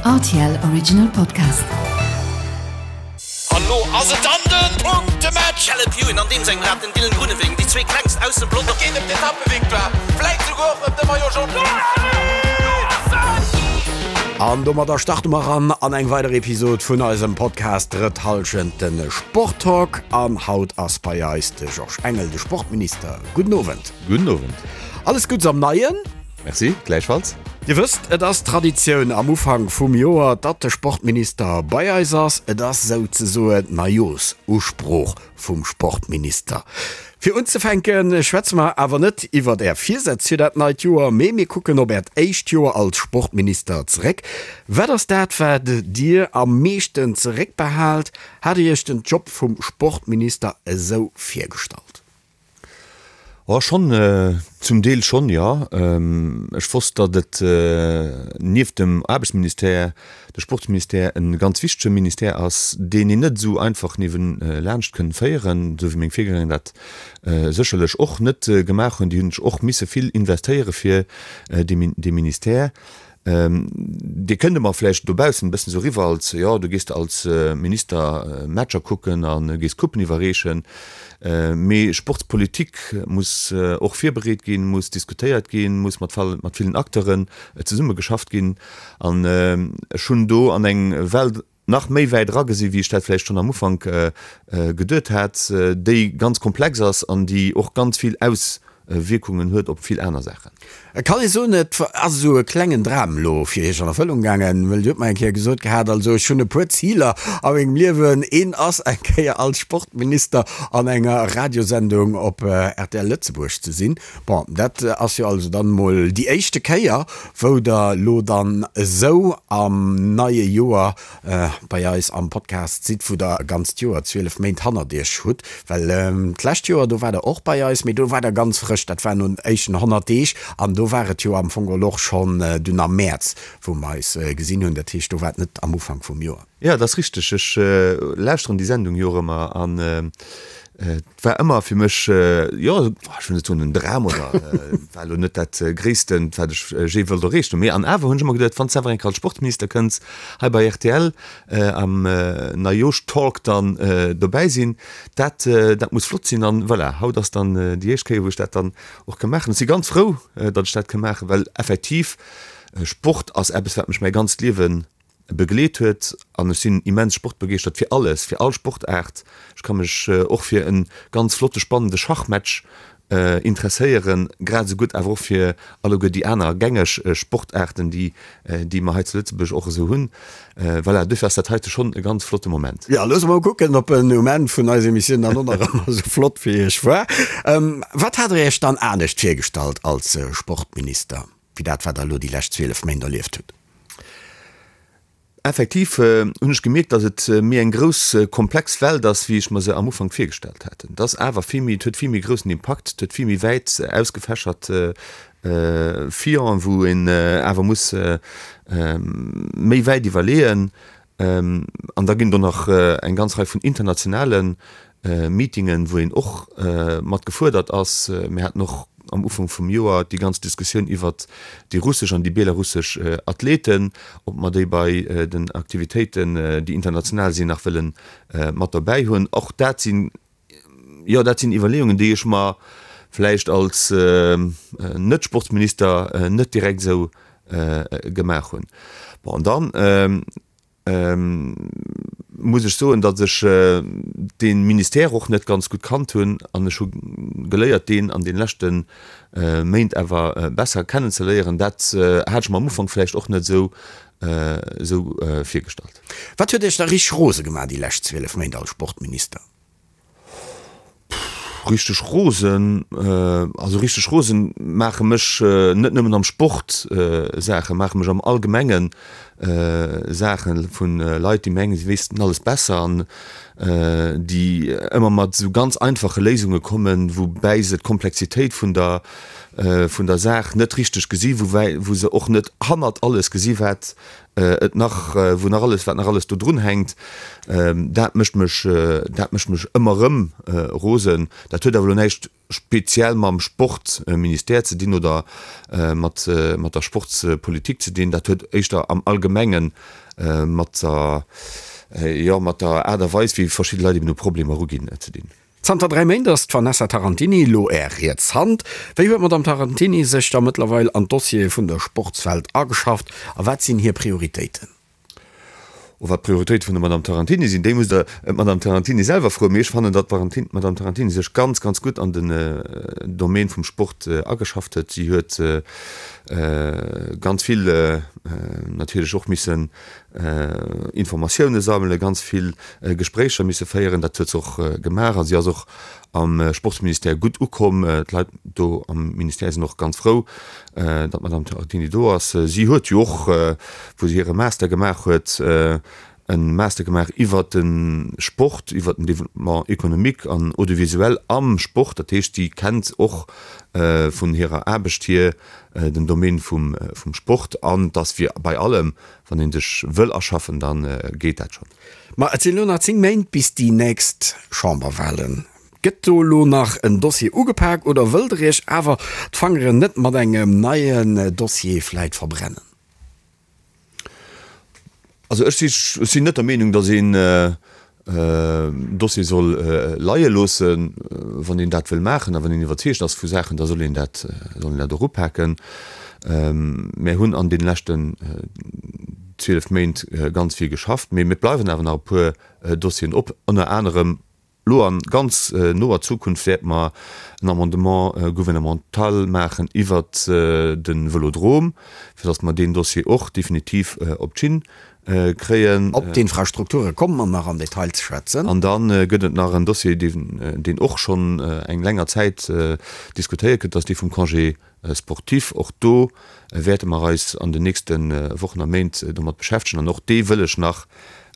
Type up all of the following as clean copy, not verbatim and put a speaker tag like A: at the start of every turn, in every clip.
A: Rtl Original Podcast.
B: An lo ass et dann den Punktematch! Caleb Ewan an deem sengem Rad, den Dylan Groenewegen, déi zwee klengst aus dem Pelotong. Et geet ëm d'Etappevictoire, vläit souguer och ëm de Maillot Jaune.
C: An domadder starte mer eran an eng weider Episod vun eisem Podcast Drëtt Hallschent, de Sporttalk. An haut ass bei eis de Georges Engel, de Sportminister. Gudden Owend.
D: Gudden Owend.
C: Alles Guddes am Neien.
D: Merci, gläichfalls.
C: Dir wësst, et ass Traditioun am Ufank vum Joer, datt de Sportminister bei eis ass. Et ass souzesoen d'Neijoersusprooch vum Sportminister. Fir unzefänke schwätze mer awer net iwwert Är Virsätz fir dat neit Joer, mee mir kucken op Äert éischt Joer als Sportminister zeréck. Wat ass dat, wat Dir am meeschten zeréckbehaalt? Hat Dir Iech den Job vum Sportminister esou virgestallt?
D: Oh, schonn, zum Deel schonn, jo. Ech wosst, datt et nieft dem Aarbechtsministère de Sportsministère e ganz wichtege Ministère ass, deen een net esou einfach niewelaanscht kënn féieren, esou wéi meng Virgänger dat sécherlech och net gemaach hunn. Déi hunn sech och misse vill investéiere fir dee Ministère. Dir kënnt ëmmer vläicht dobaussen e bëssen esou eriwwer als, jo, du gees als Minister Matcher kucken a gees Coupen iwwerreechen. Mee Sportspolitik muss och virbereet ginn, muss diskutéiert ginn, muss mat mat villen Acteuren zesummegeschafft ginn. An ech hunn do an eng Welt nach méi wäit eragesi wéi ech dat vläicht schonn am Ufank geduet hat, déi ganz komplex ass an déi och ganz vill Auswierkungen huet op vill aner Saachen.
C: Et kann ee soen, et ass esou e klengen Dram elo fir Iech an Erfëllung gaangen, well Dir hutt mer eng Kéier gesot gehat, also ech hunn e puer Ziler a mengem Liewen, een ass eng Kéier als Sportminister an enger Radiosendung op rtl Lëtzebuerg ze sinn. Bon, dat ass jo also dann emol déi éischte Kéier, wou Der elo dann esou am neie Joer bei eis am Podcast sidd, wou Der e ganzt Joer, 12 Méint hannert Iech hutt. Well d'lescht Joer, do waart Der och bei eis, mee do waart Der ganz frësch, dat war no den éischten 100 Deeg an do war et jo am Fong geholl och schonn dunn am Mäerz, wou mer eis gesinn hunn. Dat heescht, do war et net am Ufank vum Joer.
D: Jo, dat ass richteg. Ech lauschteren déi Sendung jo och ëmmer an et war ëmmer fir mech, jo, ech wëll net soen en Dram oder et war elo net dat Gréissten, wat ech jee wollt erreecht hunn. Mee an awer hunn ech ëmmer geduet, wann s de awer eng Kéier als Sportminister kënns, hei bei rtl am Neijooschtalk dann dobäi sinn, dat, dat muss flott sinn. An voilà, haut ass dann déi éischt Kéier, wou ech dat dann och ka maachen. Ech si ganz frou, datt ech dat ka maachen, well effektiv Sport ass eppes, wat mech mäi ganzt Liewen begleet huet an ech sinn immens sportbegeeschtert fir alles, fir all Sportaart. Ech ka mech och fir e ganz flotte spannende Schachmatch interesséieren, grad esou gutt awer och fir alleguer déi aner gängeg Sportaarten, déi déi mer hei zu Lëtzebuerg och esou hunn. Voilà, duerfir ass dat heite schonn e ganz flotte Moment.
C: Jo, loosse mer mol kucken, ob en um Enn vun eiser Emissioun dann och nach ëmmer esou flott fir Iech war. Wat hat Der Iech dann anescht virgestallt als Sportminister, wéi dat, wat Der elo déi lescht 12 Méint erlieft hutt?
D: Effektiv hunn ech gemierkt, datt et méi eng grouss, komplex Welt ass, wéi ech mer se am Ufank virgestallt hat. Et ass awer vill méi, et huet vill méi groussen Impakt, et huet vill méi wäit ausgefächert Fillen, wou een awer muss méi wäit iwwerleeën. An da ginn do nach eng ganz Rei vun internationale Meetingen, wou een och mat gefuerdert ass. Mir haten och am Ufank vum Joer déi ganz Diskussioun iwwert déi russesch an déi belarussesch Athleten, ob mer déi bei den Aktivitéiten, déi international sinn, nach wëlle mat dobäi hunn. Och dat sinn, jo, dat sinn Iwwerleeungen, déi ech mer vläicht als Net-Sportsminister net direkt esou gemaach hunn. Bon, an dann muss ech soen, datt ech dee Ministère och net ganz gutt kannt hunn an ech hu geléiert, deen an de leschte Méint awer besser kennenzeléieren. Dat hat ech mer am Ufank vläicht och net esou virgestallt.
C: Wat huet Iech da richteg rose gemaach déi lescht 12 Méint als Sportminister?
D: Richteg rosen, also richteg rosen maache mech net nëmmen am Sport Saachen, maache mech am Allgemengen Saachen vu Leit, déi mengen, si wéissten alles besser an déi ëmmer mat esou ganz einfache Léisunge kommen, woubäi se d'Komplexitéit vun der vun der Saach net richteg gesi, woubäi wou se och net hannert alles gesi wat et nach, wou nach alles, wat nach alles do drun hänkt, dat mécht mech, dat mécht mech ëmmer erëm rosen. Dat huet awer elo näischt. Speziell mam Sportministère ze dinn oder mat der Sportspolitik ze dinn. Dat huet éischter am Allgemenge mat der, jo, mat der Aart a Weis, wéi verschidde Leit eben u Problemer eruginn, ze dinn.
C: Zanter 3 Méint ass d'Vanessa Tarantini elo Är riets Hand. Wéi huet d'Madame Tarantini sech da mëttlerweil an d'Dossiere vun der Sportswelt ageschafft a wat sinn hir Prioritéiten?
D: Oh, wat d'Prioritéite vun der Madame Tarantini sinn, déi musst Der d'Madame Tarantini selwer froen. Mee ech fannen, datt d'Madame Tarantini sech ganz, ganz gutt an den Domaine vum Sport ageschafft huet. Si huet ganz vill natierlech och missen Informatioune sammelen, ganz vill Gespréicher misse féieren. Dat huet se och gemaach a si ass och am Sportsministère gutt ukomm. D'Leit do am Ministère sinn och ganz frou, datt d'Madame Tarantini do ass. Si huet jo och, wou se hire Master gemaach huet, e Master gemaach iwwert de Sport, iwwert den Développement économique an audiovisuel am Sport. Dat heescht, si kennt och vun hirer Aarbecht hier den Domaine vum Sport. An et ass wéi bei allem, wann ee sech wëll aschaffen, da geet dat schonn.
C: Ma et sinn elo nach 10 Méint bis déi nächst Chamberwahlen. Gëtt do elo nach en Dossier ugepak oder wëllt der Iech awer d'Fangeren net mat engem neien Dossier vläit verbrennen?
D: Also ech sinn net der Meenung, datt een Dossier soll leie loossen. Wann een dat wëll maachen a wann een iwwerzeegt ass vu Saachen, da soll een dat, soll een dat och upaken. Mär hunn an deene leschten 12 Méint ganz vill geschafft, mee et bleiwen awer nach e puer Dossieren op, ënner anerem Lo a ganz noer Zukunft wäerte mer en Amendement gouvernemental maachen iwwert de Vëlodrom, fir datt mer deen Dossier och definitiv op d'Schinn kréien.
C: Op d'Infrastrukture komme mer nach am Detail ze schwätzen.
D: An da gëtt et nach en Dossier, deen och schonn eng länger Zäit diskutéiert gëtt, dat ass dee vum Congé sportif. Och do wäerte mer eis an den nächste Wochen a Méint domat beschäftegen an och dee wëll ech nach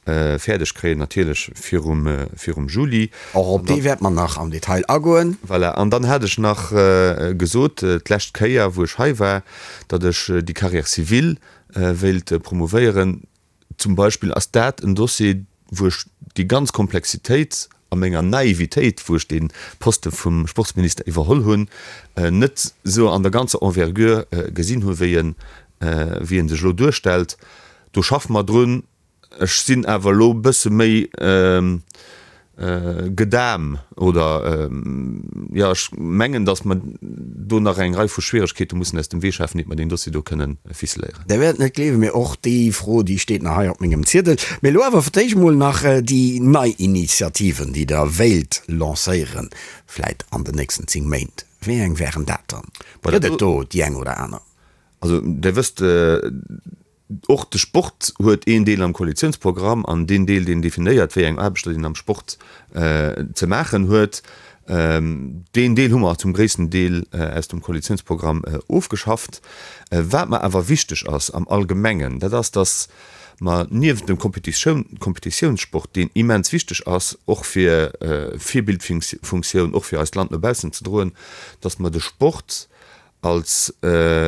D: fäerdeg kréien, natierlech virum, virum Juli.
C: Och op dee wäerte mer nach am Detail agoen.
D: Voilà. An dann hat ech nach gesot, d'lescht Kéier, wou ech hei war, datt ech déi Carrière civile wéilt promouvéieren. Zum Beispill ass dat en Dossier, wou ech déi ganz Komplexitéit a menger Naivitéit, wou ech dee Poste vum Sportsminister iwwerholl hunn, net esou an der ganzer Envergure gesinn hu wéi en, wéi en sech elo duerstellt. Do schaffe mer drun. Ech sinn awer elo e bësse méi gedam oder, jo, ech mengen, datt mer do nach eng Rei vu Schwieregkeete mussen aus dem Wee schafen, iert mer deen Dossier do kënnen ficeléieren.
C: Der wäert net gleewen, mee och déi Fro, déi steet nach hei op mengem Ziedel. Mee elo awer fir d'éischt emol nach déi nei Initiativen, déi Der wéilt lancéieren, vläit an den nächsten 10 Méint. Wéi eng wären dat dann? Gëtt et do déi eng oder aner?
D: Also, Der wësst, Och de Sport huet een Deel am Koalitiounsprogramm an deen Deel, deen definéiert, wéi eng Aarbechter een am Sport ze maachen huet, deen Deel hu mer zum gréissten Deel aus dem Koalitiounsprogramm ofgeschafft. Wat mer awer wichteg ass am Allgemengen, dat ass, dass mer niewent dem Kompetitiounssport, deen immens wichteg ass, och fir Virbildfunktioun, och fir eist Land no baussen ze droen, dass mer de Sport als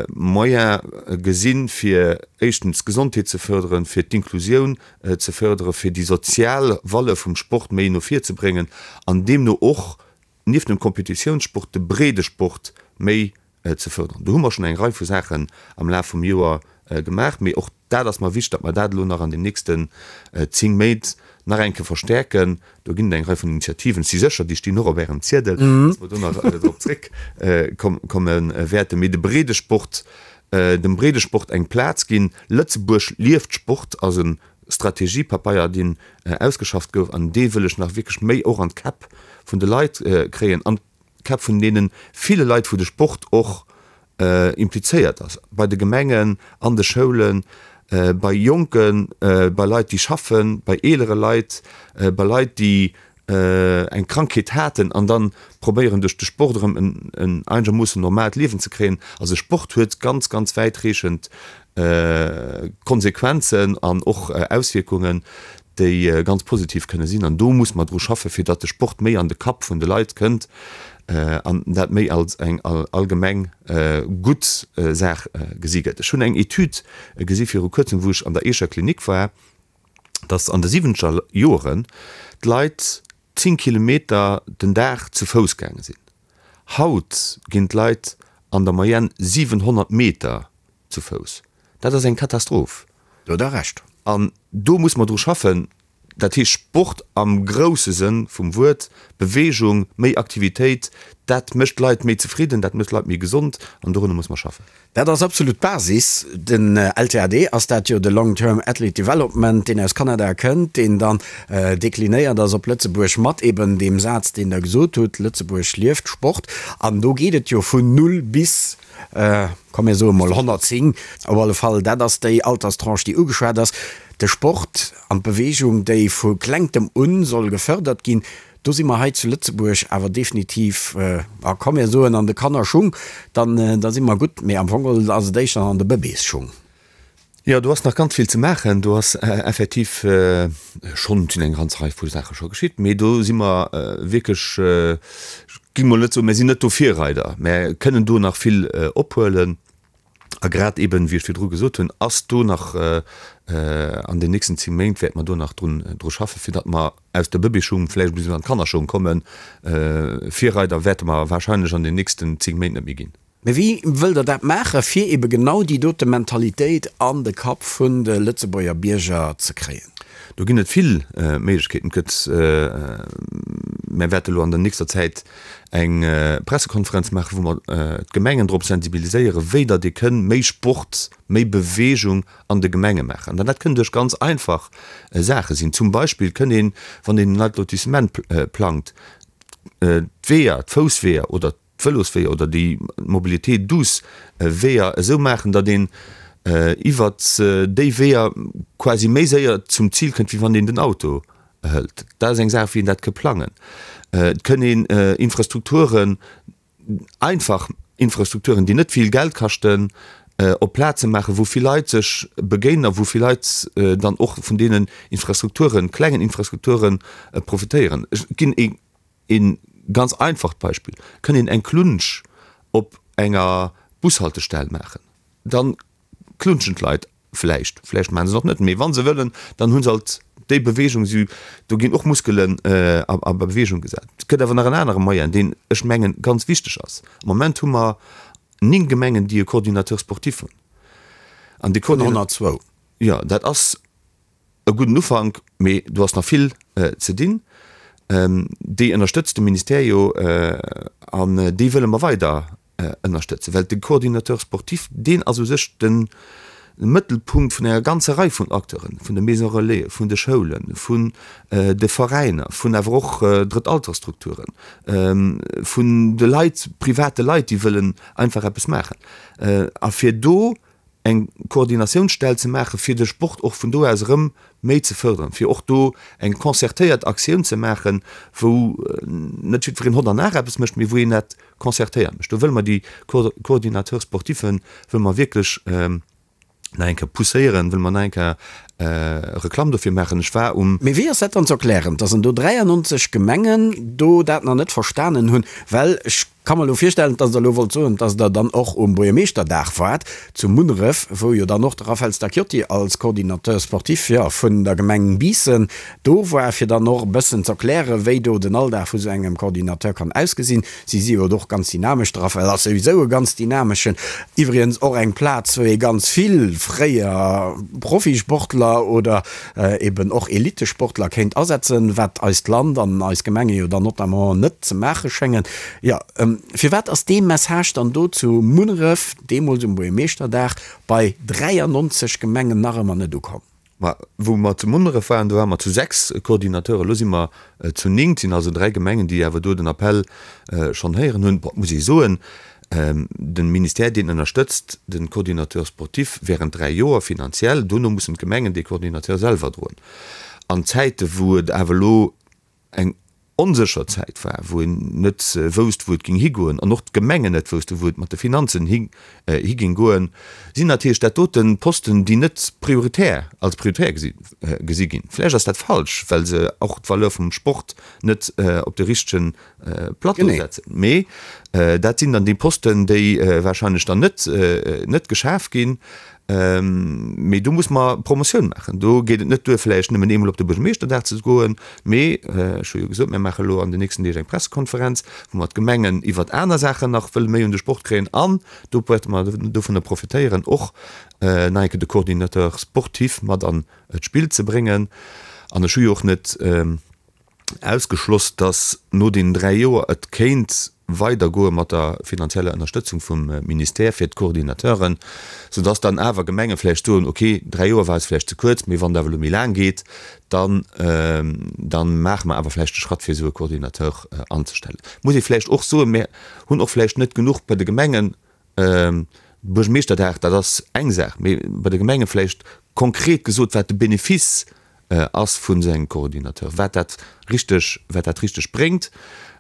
D: Moyen gesinn, fir éischtens d'Gesondheet ze fërderen, fir d'Inklusioun ze fërderen, fir déi sozial Valeur vum Sport méi no vir ze bréngen an deemno och nieft dem Kompetitiounssport de Breedesport méi ze fërderen. Do hu mer schonn eng Rei vu Saachen am Laf vum Joer gemaach, mee och dat ass mer wichteg, datt mer dat elo nach an den nächsten 10 Méint nach eng Kéier verstärken. Do ginn et eng Rei vun Initiativen, ech si sécher, déi stinn och op Ärem Ziedel, datt mer do nach drop zréckkomme wäerten. Mee de Breedesport, dem Breedesport eng Plaz ginn. Lëtzebuerg lieft Sport ass e Strategiepapeier, deen ausgeschafft gouf, an dee wëll ech nach wierklech méi och an d'Käpp vun de Leit kréien, an d'Käpp vun deene ville Leit, wou de Sport och implizéiert ass, bei de Gemengen, an de Schoulen, bei Jonken, bei Leit, déi schaffen, bei eelere Leit, bei Leit, déi eng Krankheet haten an dann probéieren duerch de Sport erëm en einegermoossen normaalt Liewen ze kréien. Also Sport huet ganz, ganz wäitreechend Konsequenzen an och Auswierkungen, déi ganz positiv kënne sinn. An do muss mer dru schaffen, fir datt de Sport méi an de Kapp vun de Leit kënnt an dat méi als eng allgemeng gutt Saach gesi gëtt. Ech hunn eng Etüd gesi viru kuerzem, wou ech an der Eecher Klinik war, datt an de siwwenzeger Joren d'Leit 10 Kilometer den Dag zu Fouss gaange sinn. Haut ginn d'Leit an der Moyenne 700 Meter zu Fouss. Dat ass eng Katastroph.
C: Do hutt Der Recht.
D: An do muss mer dru schaffen. Dat heescht Sport am grousse Sënn vum Wuert, Beweegung, méi Aktivitéit, dat mécht d'Leit méi zefridden, dat mécht d'Leit méi gesond an dorunner muss mer schaffen.
C: Dat ass absolut d'Basis. Den LTAD ass dat jo, de Long Term Athlete Development, deen aus Kanada kënnt, deen dann deklinéiert ass op Lëtzebuerg mat eben deem Saz, deen Der gesot hutt, Lëtzebuerg lieft Sport. An do geet et jo vun null bis, komm mir soe mol 110, op alle Fall, dat ass déi Alterstranche, déi ugeschwat ass. De Sport an d'Beweegung, déi vu Klengtem un soll gefërdert ginn, do si mer hei zu Lëtzebuerg awer definitiv, a komm mir soen an de Kannerschung, dann da si mer gutt, mee am Fong geholl ass et éischter an de Bëbeesschung.
D: Jo, do ass nach ganz vill ze maachen. Do ass effektiv schonn, et sinn eng ganz Rei vu Saache scho geschitt, mee do si mer wierklech, ech géing mol net soen, mir sinn net do Virreider, mä kënnen do nach vill ophuelen. A grad eben, wéi ech virdru gesot hunn, ass do nach an den nächsten 10 Méint wäerte mer do nach drun dru schaffen, fir datt mer aus der Bëbeeschung vläicht e bëssen an d'Kannerschung kommen. Virreider wäerte mer wahrscheinlech an den nächsten 10 Méint net méi ginn.
C: Mee wéi wëllt Der dat maachen, fir ebe genau déi dote Mentalitéit an de Kapp vun de Lëtzebuerger Bierger ze kréien?
D: Do ginn et vill Méiglechkeeten. Et gëtt, mir wäerte elo an der nächster Zäit eng Pressekonferenz maachen, wou mer d'Gemengen drop sensibiliséieren, wéi datt ee kënn méi Sport, méi Beweegung an de Gemenge maachen. An dat kënn duerch ganz einfach Saache sinn. Zum Beispill kënn een, wann een en neit Lotissement plangt, d'Weeër, d'Foussweeër oder d'Vëlosweeër oder déi Mobilité douce Weeër esou maachen, datt een iwwert déi Weeër quasi méi séier zum Zil kënnt, wéi wann een den Auto hëlt. Dat ass eng Saach, wéi een dat ka plangen. Et kënn een Infrastrukturen, einfach Infrastrukturen, déi net vill Geld kaschten, op Plaze maachen, wou vill Leit sech begéinen a wou vill Leit dann och vun deenen Infrastrukturen, klengen Infrastrukturen profitéieren. Ech ginn ee Een ganz einfacht Beispill, Kënn een eng Klunsch op enger Bushaltestell maachen, dann klunschen d'Leit vläicht, vläicht maachen se et och net, mee wa se wëllen, dann hu se alt déi Beweegung, si, do ginn och Muskelen a Beweegung gesat. Et gëtt awer nach en anere Moyen, deen ech mengen ganz wichteg ass. Am Moment hu mer 9 Gemengen, déi e Coordinateur sportif hunn.
C: An dee Vun 102.
D: Jo, dat ass E gudden Ufank, mee do ass nach vill ze dinn. Déi ënnerstëtzt de Ministère jo an déi wëlle mer weider ënnerstëtzen, well de Coordinateur sportif, deen ass u sech de Mëttelpunkt vun enger ganzer Rei vun Acteuren, vun de Maisons relais, vun de Schoulen, vun de Veräiner, vun awer och Drëttaltersstrukturen, vun de Leit, private Leit, déi wëllen einfach eppes maachen. A fir do eng Koordinatiounsstell ze maachen, fir de Sport och vun do aus erëm méi ze fërderen, fir och do eng concertéiert Aktioun ze maachen, wou net jiddwereen hott an nach eppes mécht, mee wou een dat concertéiert mécht. Do wëlle mer déi Coordinateurs sportiffen wëlle mer wierklech nach eng Kéier pousséieren, wëlle mer nach eng Kéier Reklamm dofir maachen. Ech war um.
C: Mee wéi ass dat dann ze erklären, dass an do 93 Gemengen do dat nach net verstanen hunn? Well ech ka mer elo virstellen, dass Der elo wollt soen, dass Der dann och um Buergermeeschterdag waart zu Munneref, wou jo dann och de Raphaël Stacchiotti als Coordinateur sportif, jo, vun der Gemeng Biissen do war, fir dann och e bëssen z'erklären, wéi do den Alldag vu sou engem Coordinateur kann ausgesinn. Si si jo och ganz dynamesch, de Raphaël ass souwisou e ganz dynameschen. Iwwregens och eng Plaz, wou ee ganz vill fréier Profisportler oder eben och Elitesportler kéint asetzen, wat eist Land an eis Gemenge jo dann notamment net ze maache schéngen. Jo, firwat ass dee Message dann do zu Munneref, deemools um Buergermeeschterdag, bei 93 Gemengen nach ëmmer net ukomm?
D: Ma wou mer zu Munneref waren, do ware mer zu 6 Coordinateuren, elo si mer zu 9. Et sinn also 3 Gemengen, déi awer do den Appell schonn héieren hunn. Bon, et muss ee soen, de Ministère, deen ënnerstëtzt de Coordinateur sportif während 3 Joer finanziell. Dono mussen d'Gemengen dee Coordinateur selwer droen. An Zäite wou et awer elo eng onsécher Zäit war, wou een net wousst, wou et géing higoen, an och d'Gemengen net woussten, wou et mat de Finanzen hi géing goen, sinn natierlech dat dote Posten, déi net prioritär, als prioritär gesi ginn. Vläicht ass dat falsch, well se och d'Valeur vum Sport net op de richtege Plateau setzen. Mee. Dat sinn dann déi Posten, déi wahrscheinlech dann net, net geschaf ginn. Mee do muss mer Promotioun maachen. Do geet et net duer, vläicht nëmmen eemol op de Buergermeeschterdag ze goen, mee ech hu jo gesot, mir maache elo an den nächsten Deeg eng Pressekonferenz, wou mer d'Gemengen iwwert aner Saachen nach wëlle méi un de Sport kréien an do wäerte mer dovunner profitéieren, och nach eng Kéier de Coordinateur sportif mat an d'Spill ze bréngen. An ech hu jo och net ausgeschloss, datt no deenen 3 Joer et kéint weidergoe mat der finanzieller Ënnerstëtzung vum Ministère fir d'Coordinateuren, soudatt dann awer Gemenge vläicht soen, okay, 3 Joer war eis vläicht ze kuerz, mee wann et awer elo méi laang geet, dann, da maache mer awer vläicht de Schratt fir esou e Coordinateur anzestellen. Muss ee vläicht och soen, mir hunn och vläicht net genuch bei de Gemengen Buergermeeschterdag, dat ass eng Saach, mee bei de Gemenge vläicht konkret gesot, wat de Benefice ass vun esou engem Coordinateur, wat dat richteg, wat dat richteg bréngt.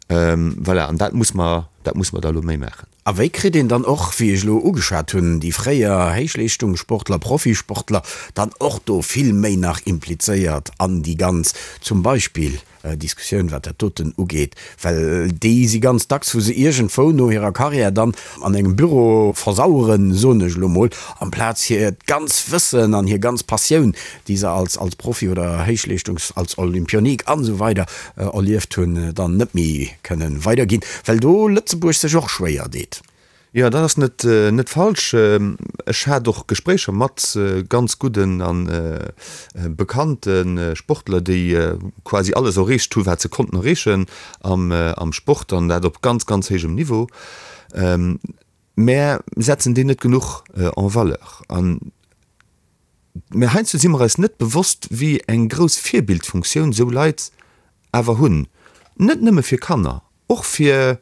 D: Voilà, an dat muss mer, dat muss mer da elo méi maachen.
C: A wéi kritt een dann och, wéi ech elo ugeschwat hunn, déi fréier Héichleeschtungssportler, Profisportler dann och do vill méi nach implizéiert an déi ganz, zum Beispill, Diskussioun, wat dat doten ugeet, well déi si ganz dacks, wou se iergendwou no hirer Carrière dann an engem Büro versaueren, soen ech elo mol, amplaz hiert ganz Wëssen an hir ganz Passioun, déi se als als Profi oder Héichleeschtungs-, als Olympionik an esou weider erlieft hunn, dann net méi kënnen weiderginn, well do Lëtzebuerg sech och schwéier deet.
D: Jo, dat ass net net falsch. Ech hat och Gespréicher mat ganz gudden a bekannte Sportler, déi quasi alles erreecht hu wat se konnten erreechen am am Sport an dat op ganz, ganz héijem Niveau. Mär setzen déi net genuch en valeur. An mä heiansdo si mer eis net bewosst, wéi eng grouss Virbildfunktioun esou Leit awer hunn, net nëmme fir Kanner, och fir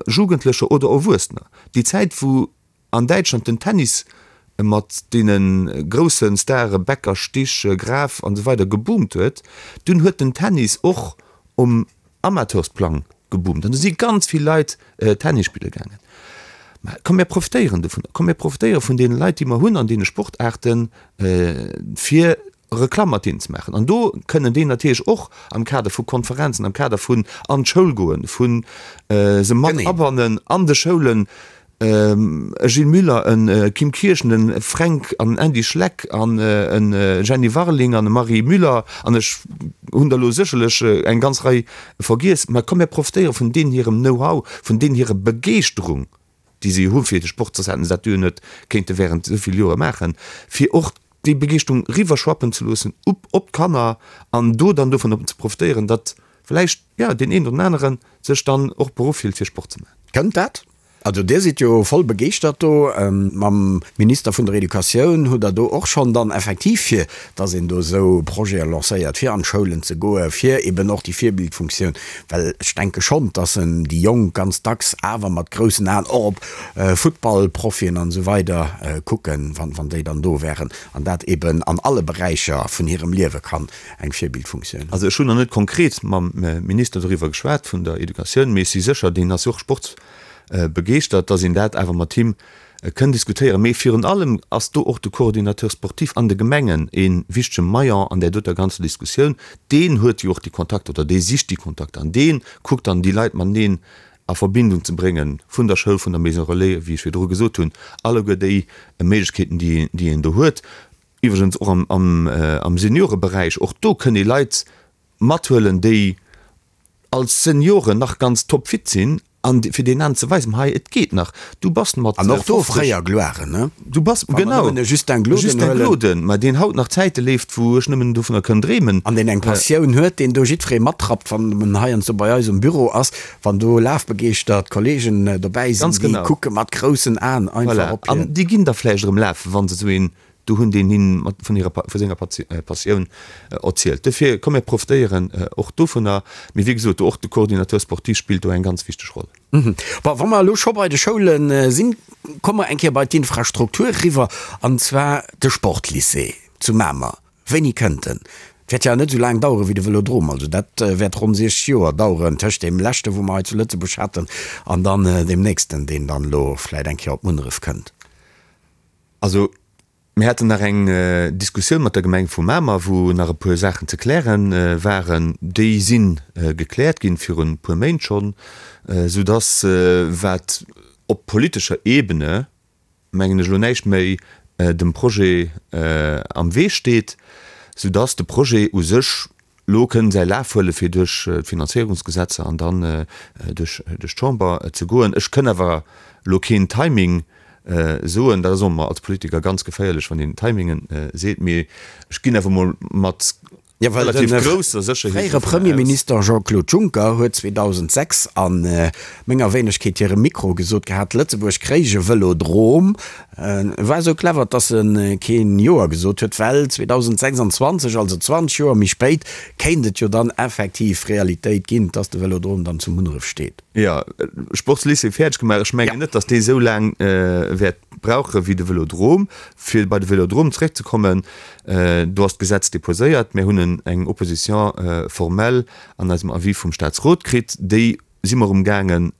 D: Jugendlecher oder Erwuessener. Déi Zäit, wou an Däitschland den Tennis mat deene grousse Stare Becker, Stich, Graf an esou weider geboomt huet, dunn huet den Tennis och um Amateursplang geboomt an do si ganz vill Leit Tennis spille gaangen. Mä komm mir profitéieren dovunner, komm mir profitéiere vun deene Leit, déi mer hunn an deene Sportaarten, fir Reklamm mat deenen ze maachen. An do kënnen déi natierlech och am Kader vu Konferenzen, am Kader vun an d'Schoul goen, vu se mat abannen an de Schoulen, e Gilles Muller, e Kim Kirchen, e Fränk an en Andy Schleck an e Jenny Warling an e Marie Müller, an ech hunn der elo sécherlech eng ganz Rei vergiess, mä komm mir profitéiere vun deenen hirem Know-how, vun deenen hirer Begeeschterung, déi se jo hu fir de Sport, soss hätten se dat jo net kéinte während esou vill Jore maachen, fir och déi Begeeschterung riwwerschwappen ze loossen op op d'Kanner an do dann dovun ze profitéieren, datt vläicht, jo, deen een oder den anere sech dann och beruff fillt fir Sport ze maachen.
C: Kënnt dat? Also Dir sidd jo voll begeeschtert do. Mam Minister vun der Educatioun hutt Der do och schonn dann effektiv fir datt een do esou Projete lancéiert, fir an d'Schoulen ze goen, fir eben och déi Virbildfunktioun, well ech denke schonn, datt en déi Jonk ganz dacks awer mat groussen Aen och op Futtballprofien an esou weider kucken, wann déi dann do wären, an dat eben an alle Beräicher vun hirem Liewe kann eng Virbildfunktioun hunn.
D: Also ech hunn nach net konkret mam Minister doriwwer geschwat vun der Educatioun, mee ech si sécher, deen ass jo och sportsbegeeschtert, datt een dat awer mat him kënn diskutéieren. Mee virun allem ass do och de Coordinateur sportif an de Gemengen ee wichtege Maillon an där doter ganzer Diskussioun. Deen huet jo och déi Kontakter oder dee sicht déi Kontakter an dee kuckt dann déi Leit mateneen a Verbindung ze bréngen vun der Schoul, vun der Maison relais, wéi ech virdru gesot hunn, alleguer déi Méiglechkeeten, déi een do huet. Iwwregens och am Senioreberäich, och do kënn ee Leit mathuelen, déi als Senioren nach ganz topfit sinn an fir deenen ze weisen, hei et geet nach, du bass mat
C: 50. An och do fréier Gloiren, ne?
D: Du bass, genau, e
C: Justin Gloden,
D: ma deen haut nach Zäite leeft, wou ech nëmmen dovunner kënn dreemen.
C: An deen eng Passioun huet, deen do jiddweree matrappt, wann en heiansdo bei eis um Büro ass, wann do lafbegeeschtert Kollegen dobäi sinn, déi kucke mat groussen Aen einfach op
D: hien. An déi ginn da vläicht erëm lafen, wa se esou een do hunn, deen hinn mat vun hirer, vu senger Passioun erzielt. Dofir, komm mir profitéieren och dovunner. Mee wéi gesot, och de Coordinateur sportif spillt do eng ganz wichteg Roll.
C: Bon, wa mer elo scho bei de Schoule sinn, komme mer eng Kéier bei d'Infrastruktur eriwwer, an zwar de Sportlycée zu Mamer. Wéini kënnt en? Et wäert jo net esou laang daueren wéi de Vëlodrom, also dat wäert ronn 60 Joer daueren tëscht deem leschte wou mer hei zu Lëtzebuerg haten an dann deem nächsten, deen dann elo vläit eng Kéier op Munneref kënnt.
D: Also. Mir haten nach eng Diskussioun mat der Gemeng vu Mamer, wou nach e puer Saachen ze kläre waren. Déi si gekläert ginn, virun e puer Méint schonn, soudass, wat op politescher Ebene, mengen ech, elo näischt méi dem Projet am Wee steet, soudass de Projet u sech elo kënn säi Laf huele fir duerch d'Finanzéierungsgesetzer an dann duerch d'Chamber ze goen. Ech kënn awer elo keen Timing soen. Dat ass och ëmmer als Politiker ganz geféierlech, wann een Timingen seet. Mee ech ginn awer emol mat
C: relativ grousser Sécherheet dovun aus. De fréiere Premierminister Jean-Claude Juncker huet 2006 a menger Wéinegkeet hirem Mikro gesot gehat, Lëtzebuerg kréich e Vëlodrom. E war esou clever, dass e keen Joer gesot huet, well 2026, also 20 Joer méi spéit, kéint et jo dann effektiv Realitéit ginn, dass de Vëlodrom dann zu Munneref steet.
D: Jo, Sportslycée fäerdeg gemaach. Ech mengen net, dass dee esou laang wäert brauche wéi de Vëlodrom. Fir bei de Vëlodrom zeréckzekommen, do ass d'Gesetz déposéiert. Mir hunn eng Opposition formelle an eisem Avis vum Statsrot kritt. Déi si mer umgaangen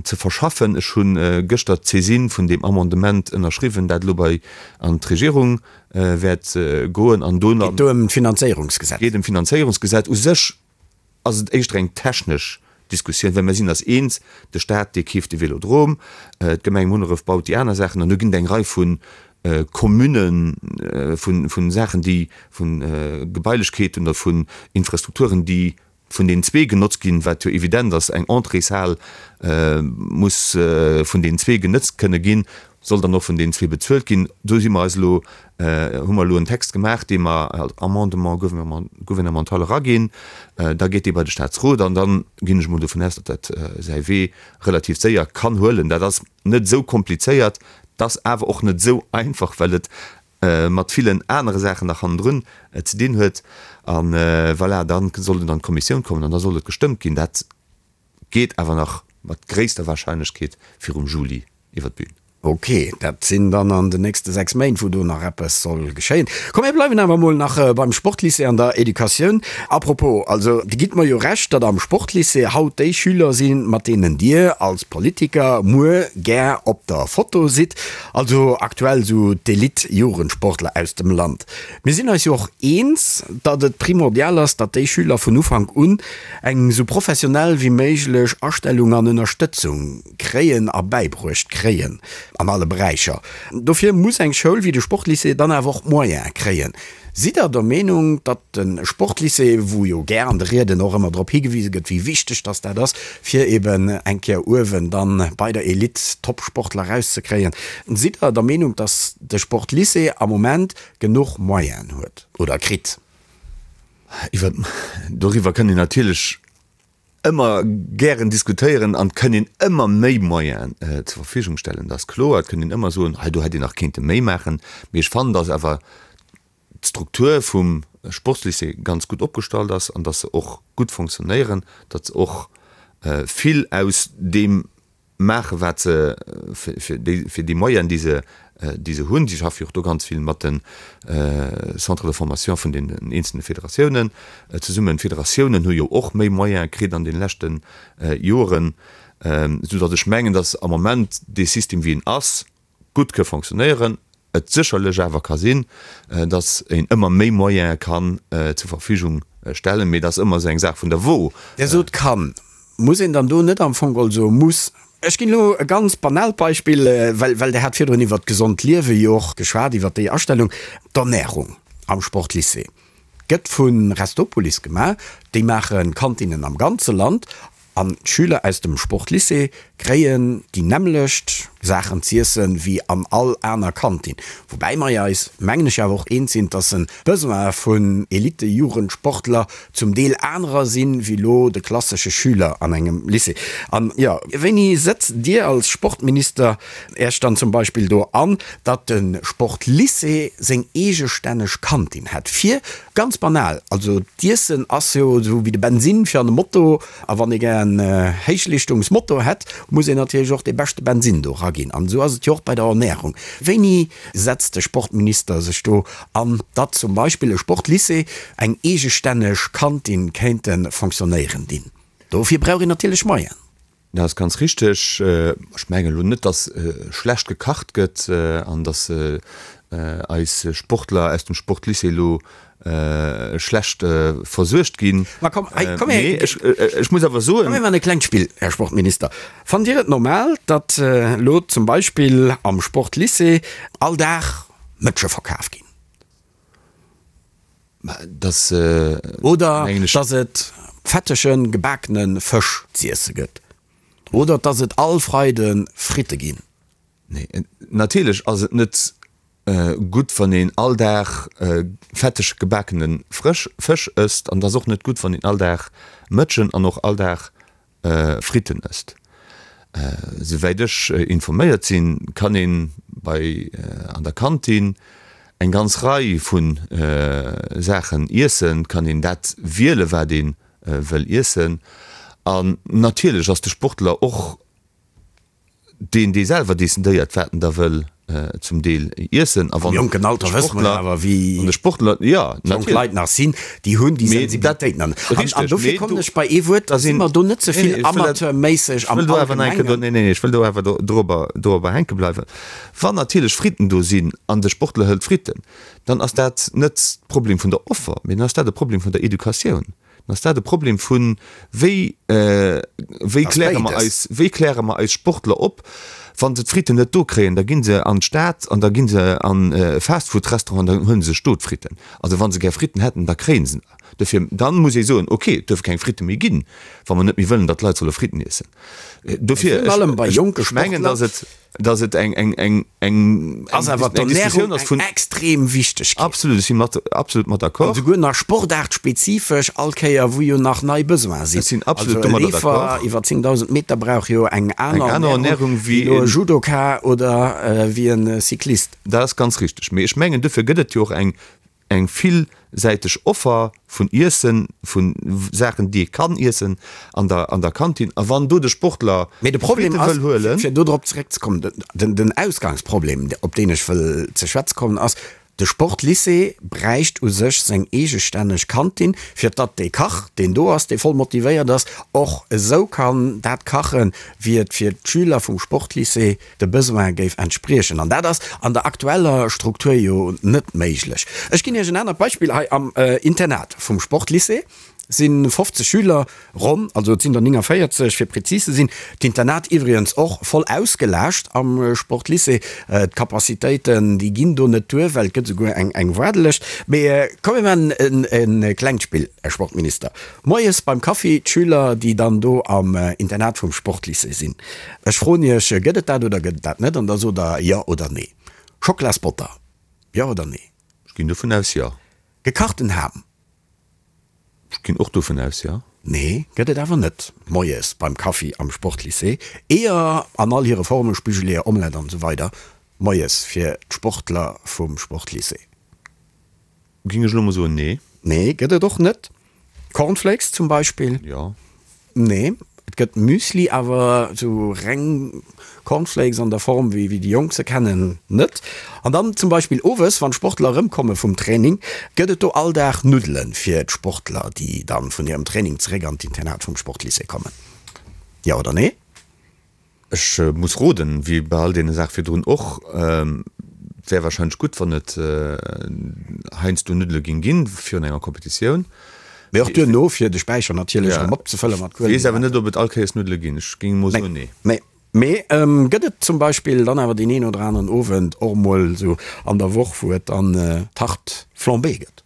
D: ze verschaffen. Ech hu gëschter d'Saisine vun deem Amendement ënnerschriwwen, dat elo bei an d'Regierung wäert goen an do.
C: Geet do ëm d'Finanzéierungsgesetz?
D: Geet ëm d'Finanzéierungsgesetz. U sech ass et éischter eng technesch Diskussioun, well mir sinn eis eens, de Stat, dee keeft de Vélodrome, d'Gemeng Munneref baut déi aner Saachen an do ginn et eng Rei vu Communen, vu Saachen, déi, vu Gebailechkeeten oder vun Infrastrukturen, déi vun deenen zwee genotzt ginn, wat jo evident ass, eng Entréeshal muss vun deenen zwee genëtzt kënne ginn, soll dann och vun deenen zwee bezuelt ginn. Do si mer eis elo, hu mer elo en Text gemaach, dee mer als Amendement gouvernemental eraginn. Da geet dee bei de Statsrot an da ginn ech emol dovun aus, datt dat säi Wee relativ séier kann huelen. Dat ass net esou komplizéiert, et ass awer och net esou einfach, well et mat villen anere Saachen nach hannendrun ze dinn huet. A voilà, da soll en an d'Kommissioun kommen an da soll et gestëmmt ginn. Dat geet awer nach mat gréisster Wahrscheinlechkeet virum Juli iwwer d'Bün.
C: Ok, dat sinn dann an den nächste 6 Méint, wou do nach eppes soll geschéien. Komm, mir bleiwen awer emol nach beim Sportlycée an der Educatioun. A propos, also Dir gitt mer jo Recht, datt am Sportlycée haut déi Schüler sinn, mat deenen Dir als Politiker muer gär op der Foto sidd. Also aktuell sou d'Elite-Jugendsportler aus dem Land. Mir sinn eis jo och eens, datt et primordial ass, datt déi Schüler vun Ufank un eng sou professionell wéi méiglech Astellung an Ënnerstëtzung kréien a bäibruecht kréien an alle Beräicher. Dofir muss eng Schoul wéi de Sportlycée dann awer och d'Moyene kréien. Sidd Der der Meenung, datt de Sportlycée, wou jo gär an de Rieden och ëmmer drop higewise gëtt, wéi wichteg datt dat ass, fir eben eng Kéier uewen dann bei der Elite Top-Sportler erauszekréien, sidd Der der Meenung, datt de Sportlycée am Moment genuch Moyenen huet oder kritt?
D: Iwwer, doriwwer kënnt een natierlech ëmmer gären diskutéieren an et kënn een ëmmer méi Moyenen zur Verfügung stellen, dat ass kloer. Et kënn een ëmmer soen, hei do hätt een nach kéinte méi maachen. Mee ech fannen, datt awer d'Struktur vum Sportslycée ganz gutt opgestallt ass an datt se och gutt fonctionnéieren, datt se och vill aus deem maachen, wat se fir déi, fir déi Moyenen, déi se, déi se hunn. Si schaffe jo och do ganz vill mat de Centres de formation vun den eenzelne Federatiounen zesummen. D'Federatiounen hu jo och méi Moyene kritt an deene leschte Joren, soudatt ech mengen, datt am Moment dee System, wéi en ass, gutt ke fonctionnéieren, et sécherlech awer ka sinn, datt een ëmmer méi Moyene kann zur Verfügung stellen, mee dat ass ëmmer esou eng Saach vun der Wo.
C: Dir sot kann. Muss een dann do net am Fong geholl soe muss? Ech ginn elo e ganz banaalt Beispill, well, well Der hat virdrun iwwert d'gesond Liewe jo och geschwat, iwwert déi Astellung. D'Ernärung am Sportlycée gëtt vu Restopolis gemaach. Déi maache Kantinnen am ganze Land An d'Schüler aus dem Sportlycée kréien déi nämmlecht Saachen z'iessen wéi an all aner Kantin. Woubäi mer eis, mengen ech, awer och eens sinn, dass en d'Besoin vun Elite-Jugendsportler zum Deel anerer sinn, wéi lo de klassesche Schüler an engem Lycée. An jo, wéini sëtzt Dir als Sportminister Äech dann zum Beispill do an, datt de Sportlycée seng eegestänneg Kantin hätt, fir ganz banal, also d'Iessen ass jo esou wéi de Bensinn fir an de Moto, a wann ee gär en Héichleeschtungsmoto hätt, muss een natierlech och dee beschte Bensinn do eraginn. An esou ass et jo och bei der Ernärung. Wéini setzt de Sportminister sech do an, datt zum Beispill e Sportlycée eng eegestänneg Kantin kéinte fonctionnéieren dinn? Dofir brauch een natierlech Moyen.
D: Dat ass ganz richteg. Ech mengen elo net, datt schlecht gekacht gëtt an datt eis Sportler aus dem Sportlycée elo schlecht versuergt ginn.
C: Ma komm, hei, komm her.
D: Mee ech muss awer soen.
C: Komm mir maachen e klengt Spill, Här Sportminister. Fannt Dir et normal, datt elo zum Beispill am Sportlycée all Dag Mëtsche verkaf ginn?
D: Dass,
C: Oder dass et fettege gebakene Fësch z'iesse gëtt. Oder dass et all Freide Fritte ginn.
D: Nee, natierlech ass et net gutt, wann een all Dag fetteg gebakene Fësch ësst. An et ass och net gutt, wann een all Dag Mëtschen an och all Dag Fritten ësst. Souwäit ech informéiert sinn, kann een bei an der Kantin eng ganz Rei vu Saachen iessen, kann een dat wiele wat ee wëll iessen. An natierlech ass de Sportler och deen dee selwer decidéiert wat en da wëll zum Deel iessen
C: a wann Am jonken Alter wësse mer awer wéi
D: de Sportler jo
C: jonk Leit nach sinn, déi hunn déi Sensibilitéit nach net. An dofir kommen ech bei ee Wuert, da si mer do net ze vill amateurméisseg
D: am Allgemengen. Nee, nee, ech wëll do awer dorobber dorobber hänke bleiwen. Wann natierlech Fritten do sinn an de Sportler hëlt Fritten, dann ass dat net de Problem vun der Offer, mee dann ass dat e Problem vun der Educatioun. Dann ass dat e Problem vun, wéi, wéi kläre mer eis, wéi kläre mer eis Sportler op, wa se d'Fritten net do kréien, da gi se an d'Stad an da gi se an e Fastfood-Restaurant an dann huele se sech do d'Fritten. Also wa se gär Fritten hätten, da kréie se der. Dofir, dann muss ee soen, okay, et duerfe keng Fritte méi ginn, wa mer net méi wëllen, datt d'Leit solle Fritten iessen. Dofir, ech mengen, datt et. dass et eng eng eng eng
C: ass awer d'Ernährung eng extrem wichteg
D: ginn. Absolut, ech si mat absolut mat d'accord.
C: An souguer nach sportaartspezifesch all Kéier wou jo nach nei Besoine sinn.
D: Ech sinn absolut domadder d'accord.
C: Also e Leefer iwwer 10.000 Meter brauch jo eng aner Ernährung wéi elo e Judoka oder wéi e Cyclist.
D: Dat ass ganz richteg. Mee ech mengen dofir gëtt et jo och eng Eng villsäiteg Offer vun Iessen, vu Saachen, déi ee kann iessen an der an der Kantin. A wann do de Sportler
C: Mee de Problem ass, wëll huelen. Fir do drop zeréckzekommen, den den Ausgangsproblem, op deen ech wëll ze schwätze kommen, ass, de Sportlycée bräicht u sech seng eegestänneg Kantin, fir datt dee Kach, deen do ass, dee voll motivéiert ass, och esou kann dat kachen, wéi et fir d'Schüler vum Sportlycée de Besoin géif entspriechen. An dat ass an der aktueller Struktur jo net méiglech. Ech ginn Iech en anert Beispill, Hei am Internat vum Sportlycée si 50 Schüler ronn, also et sinn der 49 fir prezis ze sinn. D'Internat iwwregens och voll ausgelaascht am Sportlycée. D'Capacitéiten, déi ginn do net duer, well et gëtt esouguer eng Waardelëscht. Mee komm mir maachen e klengt Spill, Här Sportminister. Moies beim Kaffi, d'Schüler, déi dann do am Internat vum Sportlycée sinn. Ech froen Iech, Gëtt et dat oder gëtt et dat net? An da sot Der Jo oder Nee. Schockelasbotter, Jo oder Nee?
D: Ech ginn dovun aus, jo.
C: Gekachten Ham?
D: Ech ginn och dovun aus, jo.
C: Nee, gëtt et awer net moies beim Kaffi am Sportlycée. Eeër an all hire Formen, Spigeleeër, Omelette an esou weider moies fir d'Sportler vum Sportlycée.
D: Ging ech elo mol soen, nee.
C: Nee, gëtt et och net. Cornflakes zum Beispill?
D: Jo.
C: Nee, et gëtt Müsli, awer sou reng Cornflakes an der Form wéi wéi déi Jonk se kennen, net. An dann zum Beispill owes, wann d'Sportler erëmkomme vum Training, gëtt et do all Dag Nuddele fir d'Sportler, déi dann vun hirem Training zeréck an d'Internat vum Sportlycée kommen. Jo oder nee?
D: Ech muss roden, wéi bei all deene Saache virdrun och. Et wär wahrscheinlech gutt, wann et heiansdo Nuddele géing ginn virun enger Competitioun.
C: Mee och duerno, fir de Späicher natierlech erëm opzefëlle mat
D: Kuelen. Weess awer net, ob et all Kéiers Nuddele ginn. Ech géing emol soen, nee.
C: Nee. Mee gëtt et zum Beispill dann awer deen een oder aneren Owend och emol esou an der Woch, wou et dann Tarte flambée gëtt?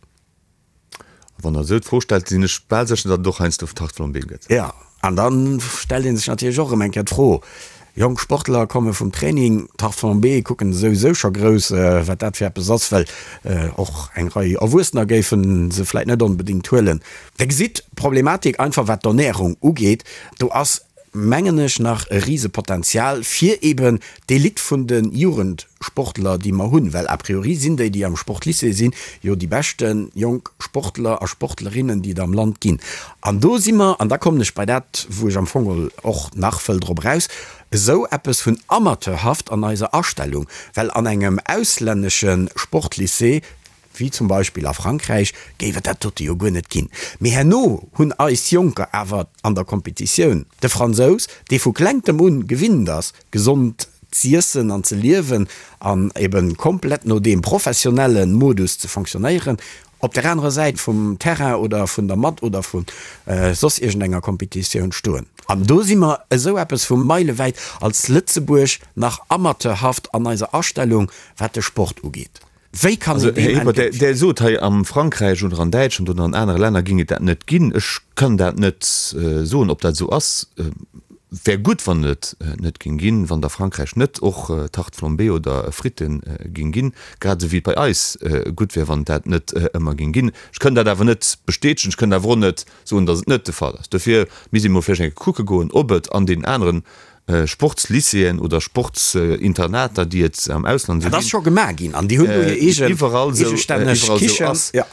D: Wann Der esou d'Fro stellt, sinn ech bal sécher, datt et och heiansdo Tarte flambée gëtt.
C: Jo, an da stellt ee sech natierlech och erëm eng Kéier d'Fro, jonk Sportler komme vum Training, Tarte flambée kucken souwisou scho grouss, wat dat fir eppes ass, well och eng Rei Erwuessener géife se vläit net onbedéngt huelen. Der gesitt d'Problematik einfach, wat d'Ernärung ugeet, do ass mengen ech, nach e Risepotenzial fir eben d'Elite vun de Jugendsportler, déi mer hunn, well a priori sinn déi, déi am Sportlycée sinn, jo déi beschte jonk Sportler a Sportlerinnen, déi et am Land ginn. An do si mer, an da kommen ech bei dat, wou ech am Fong och nach wëll drop eraus, esou eppes vun amateurhaft an eiser Astellung, well an engem auslännesche Sportlycée. wéi zum Beispill a Frankräich, géif et dat dote jo guer net ginn. Mee herno hunn eis Jonker awer an der Kompetitioun de Fransous, dee vu klengtem un gewinnt ass, gesond z'iessen an ze liewen an eben komplett no deem professionelle Modus ze fonctionnéieren, op der anerer Säit vum Terrain oder vun der Matt oder vu soss iergendenger Kompetitioun stoen. An do si mer esou eppes vu meilewäit als Lëtzebuerg nach amateurhaft an eiser Astellung, wat de Sport ugeet. Wéi kann
D: een deem entgéint? Der sot hei, am Frankräich oder an Däitschland oder an anere Länner géing et dat net ginn. Ech kann dat net soen, ob dat esou ass. Wär gutt, wann et net géing ginn, wann et a Frankräich net och Tarte flambée oder Fritten géing ginn, grad esou wéi et bei eis gutt wär, wann et dat net ëmmer géing ginn. Ech kënn dat awer net bestätegen. Ech kënn awer och net soen, datt et net de Fall ass. Dofir misst ee mol vläicht eng Kéier kucke goen, ob et an deenen aneren Sportslycéeën oder Sportsinternater, déi et am Ausland esou
C: Dat ass scho gemaach ginn an déi hunn do hir eegen
D: iwwerall esou
C: eegestänneg
D: iwwerall esou
C: Kichen.
D: ass. Ja.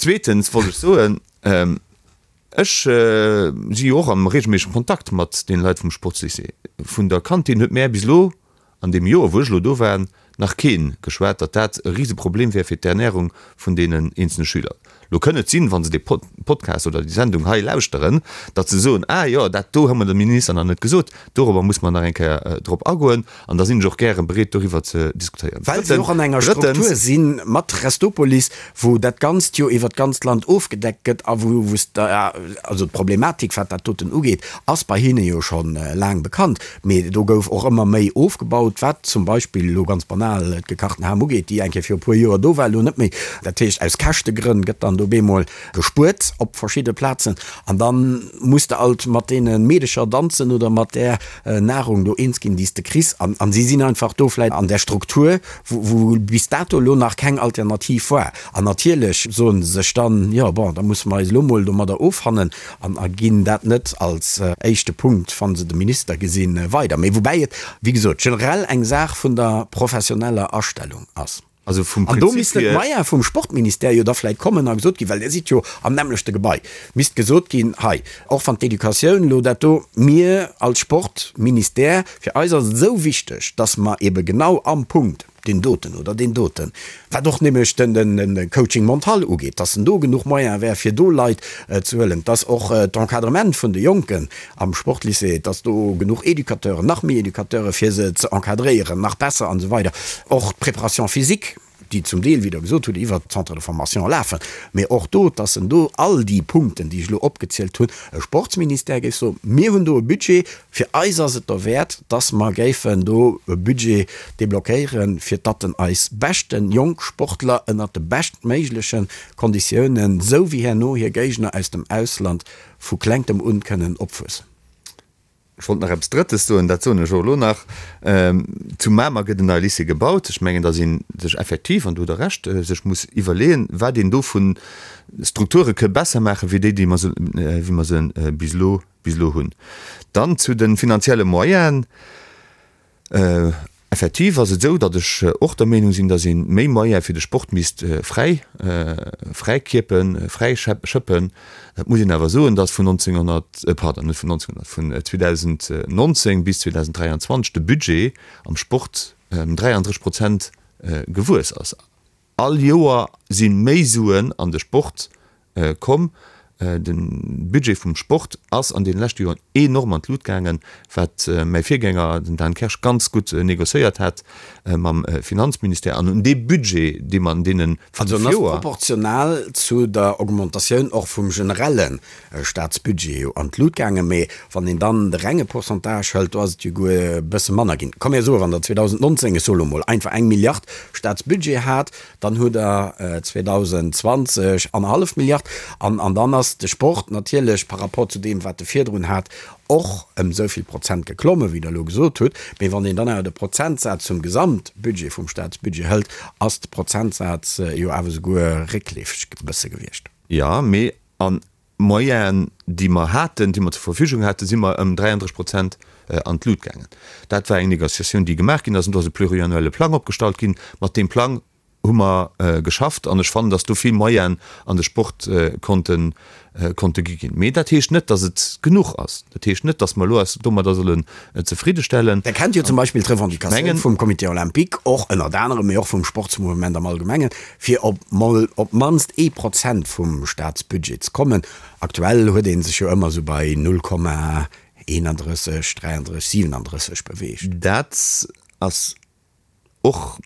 D: Zweetens wollt ech soen, ech si jo och am regelméissegem Kontakt mat deene Leit vum Sportslycée. Vun der Kantin huet mär bis elo An deem Joer, wou ech elo do war, nach kee geschwat, datt dat e Riseproblem wär fir d'Ernärung vun deenen eenzelne Schüler. Lo kënn et sinn, wa se dee Podcast oder déi Sendung hei lauschteren, datt se soen, Ah jo, dat do hu mer dem Minister nach net gesot, dorobber muss mer nach eng Kéier drop agoen. An da sinn ech och gäre bereet, doriwwer ze diskutéieren.
C: Well se och an enger Struktur si mat Restopolis, wou dat Ganzt jo iwwert d'ganzt Land ofgedeckt gëtt a wou, wou s de, also d'Problematik, wat dat doten ugeet, ass bei hinne jo scho laang bekannt. Mee do gouf och ëmmer méi ofgebaut, wat zum Beispill elo ganz banal d'gekachten Ham ugeet, déi eng Kéier viru puer Joer do war, elo net méi. Dat heescht, aus Käschtegrënn gëtt dann do bemol gespuert op verschidde Plazen an da muss de alt mat deene Meedecher danzen oder mat där Nahrung do eens ginn, déi s de kriss. An si sinn einfach do vläicht an där Struktur, wou bis dato elo nach keng Alternativ war. An natierlech soe se sech dann, jo bon, da musse mer eis elo mol domadder offannen an a ginn dat net als éischte Punkt, wa se de Minister gesinn, weider. Mee woubäi et, wéi gesot, generell eng Saach vun der professioneller Astellung ass.
D: Also vum
C: An do
D: Prinzip
C: missten
D: hier.
C: d'Moyene vum Sportministère jo da vläicht kommen a gesot ginn, well Dir sidd jo am nämmlechte Gebai, misst gesot ginn, hei, och wann d'Educatioun elo dat do, mir als Sportministère, fir eis ass et esou wichteg, dass mer ebe genau am Punkt deen doten oder deen doten, wat och nämlech den Coaching mental ugeet, dass en do genuch Moyen wär, fir do Leit ze huelen, dass och d'Encadrement vun de Jonken am Sportlycée, dass do genuch Educateuren, nach méi Educateure fir se ze encadréieren, nach besser an esou weider, och d'Préparation physique, déi zum Deel, wéi Der gesot hutt, iwwert d'Centres de formation lafen, mee och do, dass en do all déi Punkten, déi ech elo opgezielt hunn, e Sportsministère géif soen, mir hunn do e Budget, fir eis ass et derwäert, dass mer géifen do e Budget deblockéieren, fir datt en eis beschten jonk Sportler ënnert de beschtméigleche Konditiounen, esou wéi herno hir Géigner aus dem Ausland, vu klengtem un kënnen opwuessen.
D: Ech wollt nach eppes Drëttes soen, dat soen ech och elo nach. Zu Mamer gëtt en neie Lycée gebaut. Ech mengen, datt ee sech effektiv, an do hutt Der Recht, sech muss iwwerleeën, wat een do vu Strukture ke besser maachen, wéi déi, déi mer se, wéi mer se bis elo, bis elo hunn. Dann zu de finanzielle Moyenen. Effektiv ass et esou, datt ech och der Meenung sinn, datt ee méi Moyene fir de Sport misst fräi, fräikierpen, fräischëppen. Et muss een awer soen, datt vun 1900, pardon, net vun 1900, vun 2019 bis 2023 de Budget am Sport ëm 33 Prozent gewuess ass. All Joer si méi Suen an de Sport komm. De Budget vum Sport ass an deene leschte Joren enorm an d'Lut gaangen, wat mäi Virgänger, den Dan Kersch, ganz gutt négociéiert hat mam Finanzministère. An un dee Budget, dee mer an deene
C: 5 Joer. Also en ass proportional zu der Augmentatioun och vum generelle Staatsbudget jo an d'Lut gaangen. Mee wann een dann de renge Pourcentage hëlt, do ass et jo guer e bësse manner ginn. Komm mir soen, wann Der 2019, ech soe lo mol einfach, eng Milliard Staatsbudget hat, dann hutt Der 2020 annerhallef Milliard. An an dann ass de Sport natierlech par rapport zu deem, wat e virdrun hat, och ëm esou vill Prozent geklommen, wéi Der elo gesot hutt. Mee wann een dann awer de Prozentsaz zum Gesamtbudget vum Staatsbudget hëlt, ass de Prozentsaz jo awer souguer réckleefeg e bësse gewiescht.
D: Jo, mee an Moyenen, déi mer haten, déi mer zur Verfügung haten, si mer ëm 33 Prozent an d'Lut gaangen. Dat war eng Négociatioun, déi gemaach ginn ass, an do ass e pluriannuelle Plang opgestallt ginn. Mat deem Plang. Hu mer geschafft an ech fannen, dass do vill Moyenen an de Sport konnte konnte gi ginn. Mee dat heescht net, dass et genuch ass. Dat heescht net, dass mer elo eis domadder sollen zefridde stellen.
C: Der kennt jo zum Beispill d'Revendicatioun vum Comité olympique, och ënnert anerem, mee och vum Sportsmouvement am Allgemengen, fir op mol op d'mannst ee Prozent vum Staatsbudget ze kommen. Aktuell huet ee sech jo ëmmer esou bei 0,31, 33, 37 beweegt.
D: Dat ass och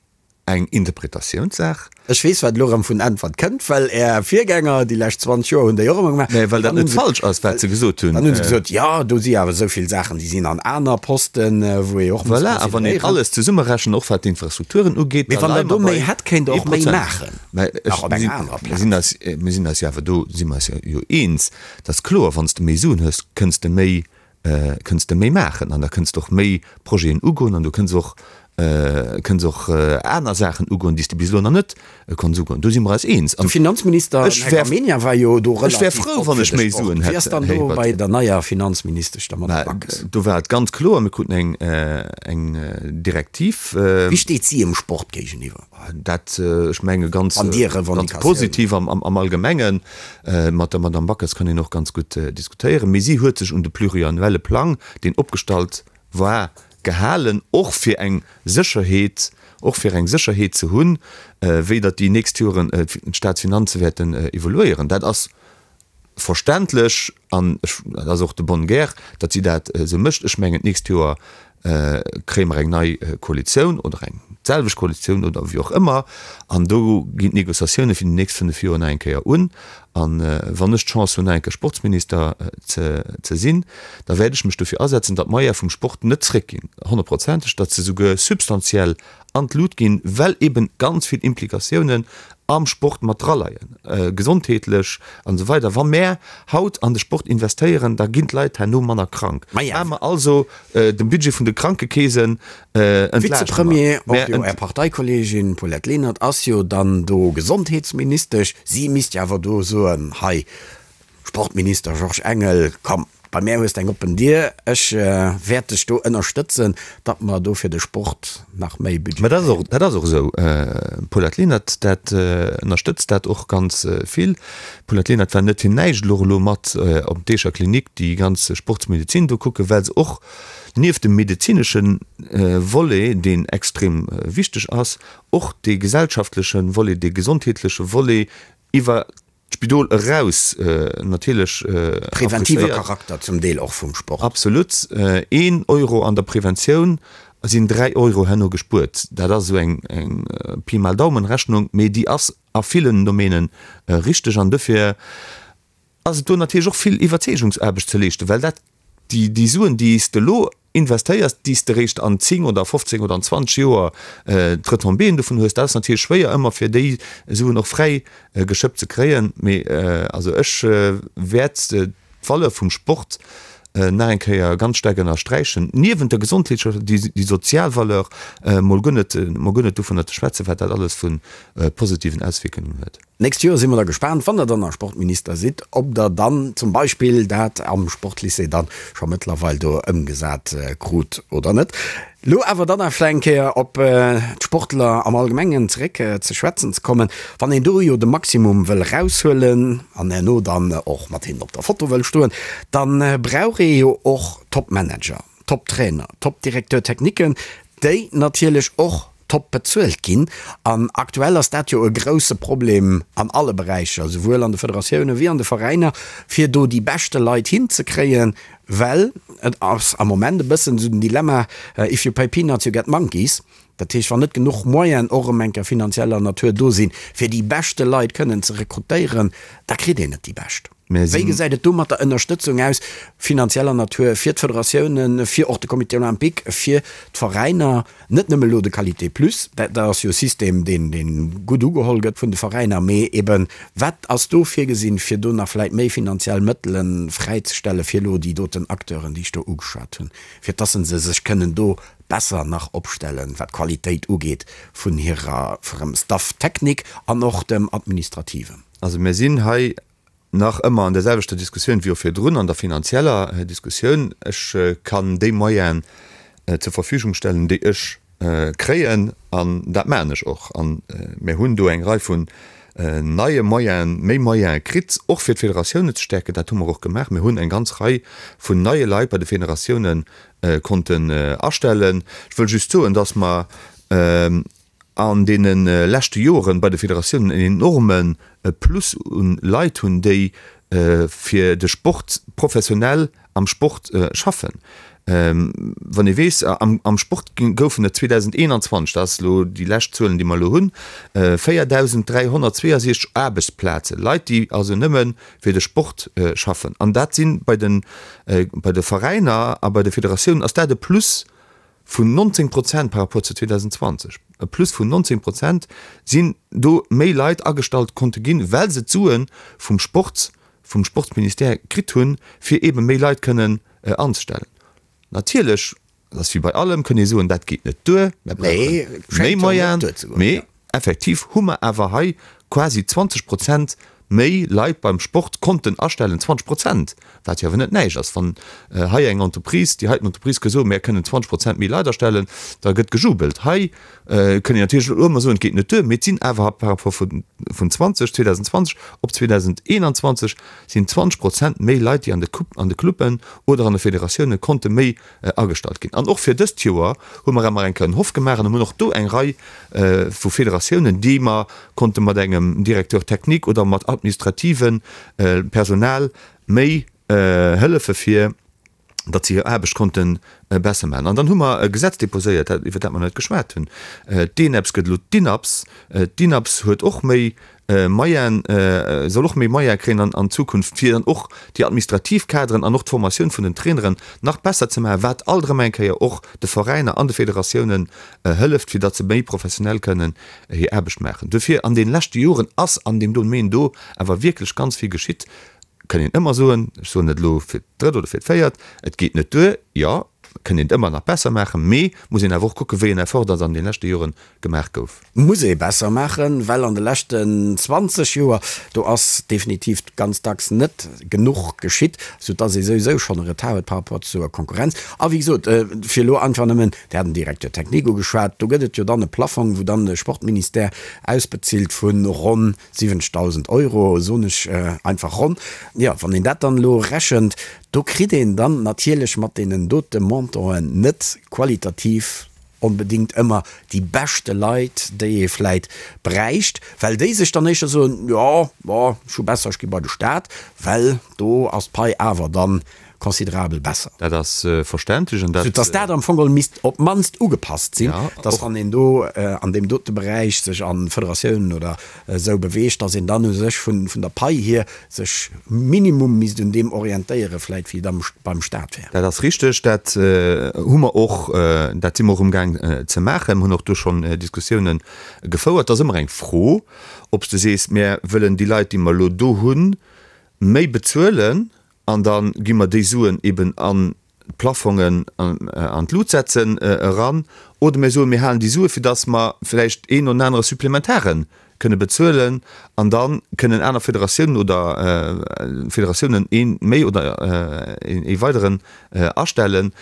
D: eng Interpretatiounssaach.
C: Ech weess, wat elo erëm vun Äntwert kënnt, well Är Virgänger déi lescht 20 Joer hunn déi och ëmmer
D: gemaach. Mä well dat net falsch ass, wat se gesot hunn.
C: Dann hu se gesot, jo, do si awer esou vill Saachen, déi sinn an aner Posten, wou ee och
D: muss Voilà, a wann een consideréieren. alles zesummerechent, och wat d'Infrastrukturen ugeet,
C: Mee da wann Der leie do mer méi bei hätt, kéint Der och méi 1%. maachen,
D: Mä ech, nach op mir enger sinn, anerer mir sinn Plaz. eis, mir sinn eis jo awer do, si mer eis jo eens, dass kloer, wann s de méi Suen hues, kënns de méi kënns de méi maachen an da kënns de och méi Projeten ugoen an du kënns och kënns och aner Saachen ugoen, déi s de bis elo nach net konns ugoen. Do si mer eis eens.
C: De Finanzminister, den Här Gramegna, war jo do
D: relativ Ech wär frou, wann ech méi Suen
C: hätt. Wéi ass dann do bei der neier Finanzministesch, der Madame Backes?
D: Do war et ganz kloer, mir kruten eng eng Direktiv.
C: Wéi steet si em Sport géigeniwwer?
D: Dat, ech menge ganz positiv am Allgemengen. Mat der Madame Backes kann een och ganz gutt diskutéieren. Mee si huet sech un de pluriannuelle Plang, deen opgestallt war, gehalen, och fir eng Sécherheet, och fir eng Sécherheet ze hunn, wéi datt déi nächst Joren d'Staatsfinanze wäerten evoluéieren. Dat ass verständlech an ech, dat ass och de bonne guerre, datt si dat esou mécht. Ech mengen, d'nächst Joer kréie mer eng nei Koalitioun oder eng d'selwecht Koalitioun oder wéi och ëmmer an do ginn d'Négociatioune fir déi nächst 5 Joer nach eng Kéier un. An wann ech d'Chance hunn, nach eng Kéier Sportsminister ze sinn, da wäert ech mech dofir asetzen, datt d'Moyene vum Sport net zréckginn, honnertprozenteg, datt se souguer substantiell an d'Lut ginn, well eben ganz vill Implikatiounen am Sport mat draleien, gesondheetlech an esou weider. Wa mär haut an de Sport investéieren, da ginn d'Leit herno manner krank. Maache mer also de Budget vun de Krankekeesen
C: entlaaschte mer. Vizepremier, och jo Är Parteikolleegin Paulette Lenert ass jo dann do Gesondheetsministesch. Si misst jo awer do soen, hei Sportminister Georges Engel, komm, bei mär hues de eng oppen Dier, ech wäert dech do ënnerstëtzen, datt mer do fir de Sport nach méi
D: Budget Mä dat ass och, dat ass och esou. D'Paulette Lenert, dat ënnerstëtzt dat och ganz vill. D'Paulette Lenert war net fir näischt elo elo mat op d'Eecher Klinik déi ganz Sportsmedezin do kucken, well se och nieft dem medezinesche Volet, deen extrem wichteg ass, och dee gesellschaftleche Volet, dee gesondheetleche Volet iwwer d'Spidol eraus natierlech
C: Preventive Charakter zum Deel och vum Sport.
D: Absolut. Een Euro an der Preventioun sinn 3 Euro herno gespuert. Dat ass esou eng Pi mal Daumen Rechnung, mee déi ass a villen Domäne richteg. An dofir ass et do natierlech och vill Iwwerzeegungsaarbecht ze leeschten, well dat Déi Suen, déi s de elo investéiers, déi s de eréischt an 10 oder 15 oder an 20 Joer d'Retombéeën dovun hues, dat ass natierlech schwéier ëmmer fir déi Suen och fräi geschëppt ze kréien. Mee also ech wäert d'Valeur vum Sport nach eng Kéier ganz staark ënnersträichen, niewent der gesondheetlecher, déi sozial Valeur, mol guer net, mol guer net dovunner ze schwätzen, wat dat alles vu positiven Auswierkungen huet.
C: D'nächst Joer si mer da gespaant, wann Der dann nach Sportminister sidd, ob Der dann zum Beispill dat am Sportlycée dann scho mëttlerweil do ëmgesat krut oder net. Elo awer dann nach vläicht eng Kéier op d'Sportler am Allgemengen zeréck ze schwätzen ze kommen. Wann een do jo de Maximum wëll eraushuelen an herno dann och mat hinnen op der Foto wëll stoen, da brauch ee jo och Top-Manager, Top-Trainer, Top-Directeur techniquen, déi natierlech och top bezuelt ginn. An aktuell ass dat jo e grouse Problem an alle Beräicher, souwuel an de Federatioune wéi an de Veräiner, fir do déi beschte Leit hinzekréien, well et ass am Moment e bëssen esou den Dilemma, if you pay peanuts, you get monkeys. Dat heescht, wann net genuch Moyenen och erëm eng Kéier finanzieller Natur do sinn, fir déi beschte Leit kënnen ze rekrutéieren, da kritt een net déi bescht. Wéi gesäit et do mat der Ënnerstëtzung aus, finanzieller Natur, fir d'Federatiounen, fir och de Comité olympique, fir d'Veräiner, net nëmme elo de Qualité Plus, dat ass jo e System, deen gutt ugeholl gëtt vun de Veräiner, mee eben, wat ass do virgesinn, fir do nach vläicht méi finanziell Mëttele fräizestelle fir elo déi doten Acteuren, déi ech do ugeschwat hunn, fir dass se sech kënnen do besser nach opstellen, wat d'Qualitéit ugeet vun hirer, vum Staff technique an och dem Administrativen?
D: Also mir sinn hei Nach ëmmer an der selwechter Diskussioun wéi och virdrun, an der finanzieller Diskussioun. Ech kann déi Moyenen zur Verfügung stellen, déi ech kréien an dat maachen ech och. A mir hunn do eng Rei vun neie Moyenen, méi Moyene kritt, och fir d'Federatiounen ze stäerken. Dat hu mer och gemaach. Mir hunn eng ganz Rei vun neie Leit bei de Federatioune konnten astellen. Ech wëll just soen, dass mer an deene leschte Joren bei de Federatiounen en enorme Plus un Leit hunn, déi fir de Sport professionell am Sport schaffen. Wann ee weess, am Sport goufen et 2021, dat ass elo déi lescht Zuelen, déi mer elo hunn, 4.362 Aarbechtsplazen, Leit, déi also nëmme fir de Sport schaffen. An dat si bei de Veräiner a bei de Federatiounen ass dat e Plus vun 19 Prozent par rapport zu 2020, e Plus vun 19 Prozent sinn do méi Leit agestallt konnte ginn, well se d'Sue vum Sport, vum Sportsministère kritt hunn, fir eebe méi Leit kënnen anzestellen. Natierlech, dat ass wéi bei allem, kënn ee soen, dat geet net duer, mer brauche méi Moyenen, mee effektiv hu mer awer hei quasi 20 Prozent méi Leit beim Sport konnten astellen, 20 Prozent, wat jo awer net näischt ass. Wann hei eng Entreprise, déi heiten Entreprise ka soen, mär kënnen 20 Prozent méi Leit astellen, da gëtt gejubelt. Hei kënn een natierlech elo ëmmer soen, et geet net duer, mee et sinn awer par rapport vun 20, 2020 op 2021 sinn 20 Prozent méi Leit, déi an de an de Cluben oder an de Federatioune konnte méi agestallt ginn. An och fir dëst Joer hu mer emmer eng Kéier en Hoff gemaach an hunn och do eng Rei vu Federatiounen, déi mer konnte mat engem Directeur technique oder mat administrative Personal méi hëllefe fir datt se hir Aarbecht konnte besser maachen. An dann hu mer e Gesetz déposéiert, dat, iwwer dat mer net geschwat hunn. D'ENEPS gëtt elo d'INAPS. D'INAPS huet och méi Moyen, soll och méi Moyen kréien an Zukunft, fir dann och déi administrativ Kaderen an och d'Formatioun vun den Traineren nach besser ze maachen, wat alt erëm eng Kéier och de Veräiner an de Federatiounen hëlleft, fir datt se méi professionell kënnen hir Aarbecht maachen. Dofir, an deene leschte Joren ass an deem Domaine do awer wierklech ganz vill geschitt. Kënn een ëmmer soen, ech soen et elo fir d'drëtt oder fir d'véiert, et geet net duer, jo, kënn een et ëmmer nach besser maachen, mee muss een awer och kucken, wéi en Effort datt an deene leschte Jore gemaach gouf.
C: Muss ee besser maachen, well an de leschten 20 Joer, do ass definitiv ganz dacks net genuch geschitt, soudatt ee souwisou schonn e Retard huet par rapport zur Konkurrenz. A wéi gesot, fir elo einfach nëmmen, Dir hat den Directeur technique ugeschwat, do gëtt et jo dann e Plaffong, wou dann de Sportministère ausbezilt vu ronn 70.000 Euro, soen ech einfach ronn. Jo, wann een dat dann elo rechent, do kritt een dann natierlech mat deenen dote Montanten net qualitativ onbedéngt ëmmer déi beschte Leit, déi ee vläit bräicht, well déi sech dann éischter soen, jo, bon, ech hu besser, ech gi bei de Staat, well do ass d'Pai awer dann considerabel besser.
D: Dat ass verständlech an dat.
C: Soudass dat am Fong geholl misst op d'mannst ugepasst sinn, dass wann een do an deem dote Beräich sech a Federatiounen oder esou beweegt, dass een dann u sech vun der Pai hier sech minimum misst un deem orientéiere vläit wéi et am beim Stat wär.
D: Dat ass richteg. Dat hu mer och, dat si mer och amgaang ze maachen. Mir hunn och do schonn Diskussiounen gefouert. Et ass ëmmer eng Fro, ob s de sees, Mir wëllen déi Leit, déi mer elo do hunn, méi bezuelen an da gi mer déi Suen eben an d'Plafongen an d'Lut setzen eran, oder mir soen, mir halen déi Sue fir datt mer vläicht een oder anere Supplementare kënne bezuelen an da kënnen aner Federatiounen oder Federatiounen ee méi oder ee weideren astellen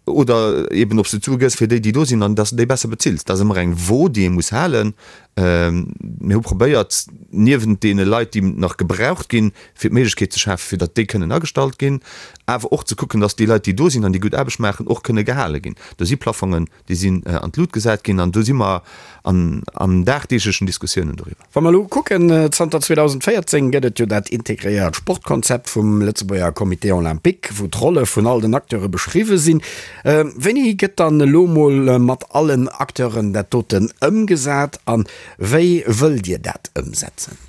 D: oder eben ob s de d'Sue gëss fir déi, déi do sinn an datt s de déi besser bezills. Dat ass ëmmer eng Wo, déi ee muss halen. Mir hu probéiert, niewent deene Leit, déi nach gebraucht ginn, fir d'Méiglechkeet ze schafen, fir datt déi kënnen agestallt ginn, awer och ze kucken, datt déi Leit, déi do sinn an déi gutt Aarbecht maachen, och kënne gehale ginn. Do si Plafongen, déi sinn an d'Lut gesat ginn an do si mer an dagdeeglechen Diskussiounen doriwwer.
C: Wa mer elo kucken, zanter 2014 gëtt et jo dat integréiert Sportkonzept vum Lëtzebuerger Comité Olympique, wou d'Rolle vun all den Acteure beschriwwe sinn. Wéini gëtt dann elo mol mat allen Acteuren dat doten ëmgesat a wéi wëllt Dir dat ëmsetzen?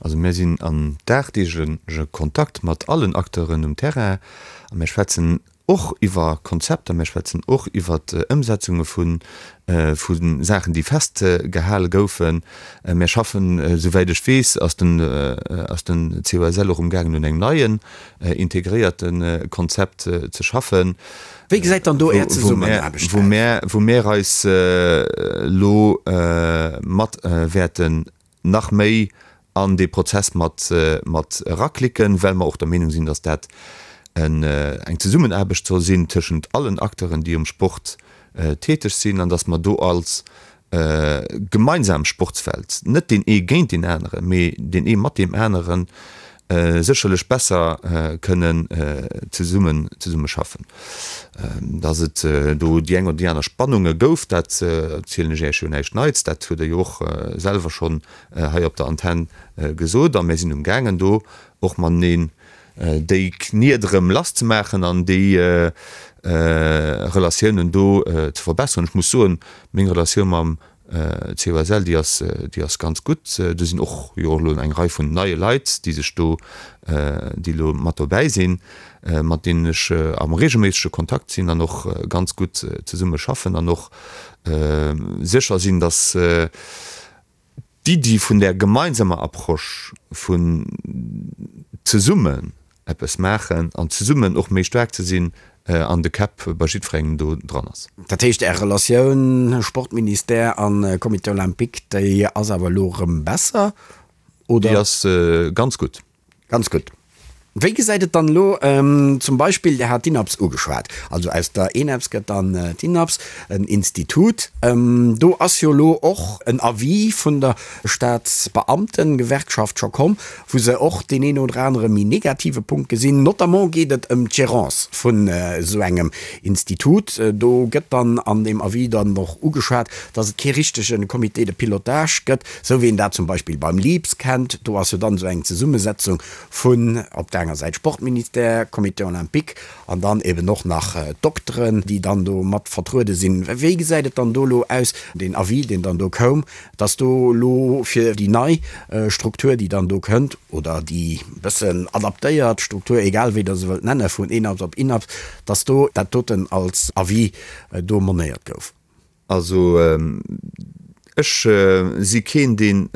D: Also mir sinn an dagdeegleche Kontakt mat allen Acteuren um Terrain a mir schwätzen och iwwer Konzepter, mir schwätzen och iwwer Ëmsetzunge vu vu Saachen, déi festgehale goufen. Mir schaffen, esouwäit ech weess, ass den ass den COSL och umgaangen un engem neien integréierte Konzept ze schaffen.
C: Wéi gesäit dann do Är Zesummenaarbecht
D: aus? Wou mär wou mär eis elo mat wäerten nach méi an dee Prozess mat mat eraklicken, well mer och der Meenung sinn, dass dat eng Zesummenaarbecht soll sinn tëschent allen Acteuren, déi um Sport. täteg sinn an datt mer do als gemeinsam Sportswelt, net deen ee géint deen aneren, mee deen ee mat deem aneren, sécherlech besser kënnen zesummen zesummeschaffen. Datt et do déi eng oder déi aner Spannunge gouf, dat erzielen ech Iech jo näischt Neits, dat hutt Der jo och selwer schonn hei op der Antenn gesot. A mir sinn umgaangen do och mateneen déi Kniet erëm lass ze maachen an déi Relatiounen do ze verbesseren. Ech muss soen, meng Relatioun mam COSL, déi ass, déi ass ganz gutt. Do sinn och jo elo eng Rei vun neie Leit, déi sech do, déi elo mat dobäi sinn, mat deenen ech am reegelméissege Kontakt sinn an och ganz gutt zesumme schaffen an och sécher sinn, datt d'Iddi vun där gemeinsamer Approche vun zesummen eppes maachen an zesummen och méi staark ze sinn an de Käpp bei jiddwerengem do dran ass.
C: Dat heescht, Är Relatioun Sportministère a Comité olympique, déi ass awer elo erëm besser, oder?
D: Déi ass ganz gutt.
C: Ganz gutt. Wéi gesäit et dann elo zum Beispill, Dir hat d'INAPS ugeschwat, also aus der ENAPS gëtt dann d'INAPS, en Institut. Do ass jo elo och en Avis vun der Staatsbeamtengewerkschaft scho komm, wou se och deen een oder anere méi negative Punkt gesinn. Notamment geet et ëm d'Gérance vun esou engem Institut. Do gëtt dann an deem Avis dann och ugeschwat, dass et kee richtege Comité de pilotage gëtt, Sou wéi een dat zum Beispill beim LEAPS kennt, do ass jo dann esou eng Zesummesetzung vun op der enger Säit Sportministère, Comité olympique an dann eben och nach d'Dokteren, déi dann do mat vertruede sinn. Wéi gesäit et dann do elo aus, deen Avis, deen dann do koum, dass do elo fir déi nei Struktur, déi dann do kënnt, oder déi bëssen adaptéiert Struktur, egal wéi Der se wëllt nenne vun ENAPS op INAPS, dass do dat doten als Avis do monéiert gouf?
D: Also ech si keen, deen,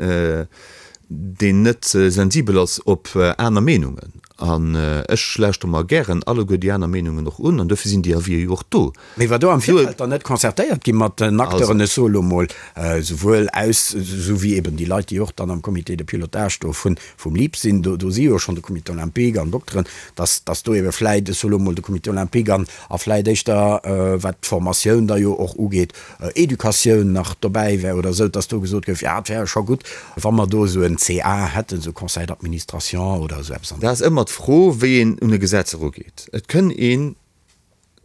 D: deen net sensibel ass op aner Meenungen. An ech lauschtere mer gären alleguer déi aner Meenungen och un. An dofir sinn déi Avisë jo och do.
C: Mee war do am Virfeld dann net concertéiert gi mat den Acteuren, ech soe lo mol, souwuel aus, esou wéi eben déi Leit, déi och dann am Comité de pilotage do vun, vum LIP sinn, do, do si jo schonn de Comité olympique an Dokteren, dass, dass do ebe vläit, ech soe lo mol, de Comité olympique an, a vläit éischter, wat d'Formatioun da jo och ugeet, Educatioun nach dobäi wär oder esou, dass do gesot gouf, jo, et wär scho gutt, wa mer do esou en CA hätten, esou e Conseil d'administration oder esou eppes
D: an. Dat ass ëmmer d'Fro, wéi een un e Gesetz erugeet. Et kënn een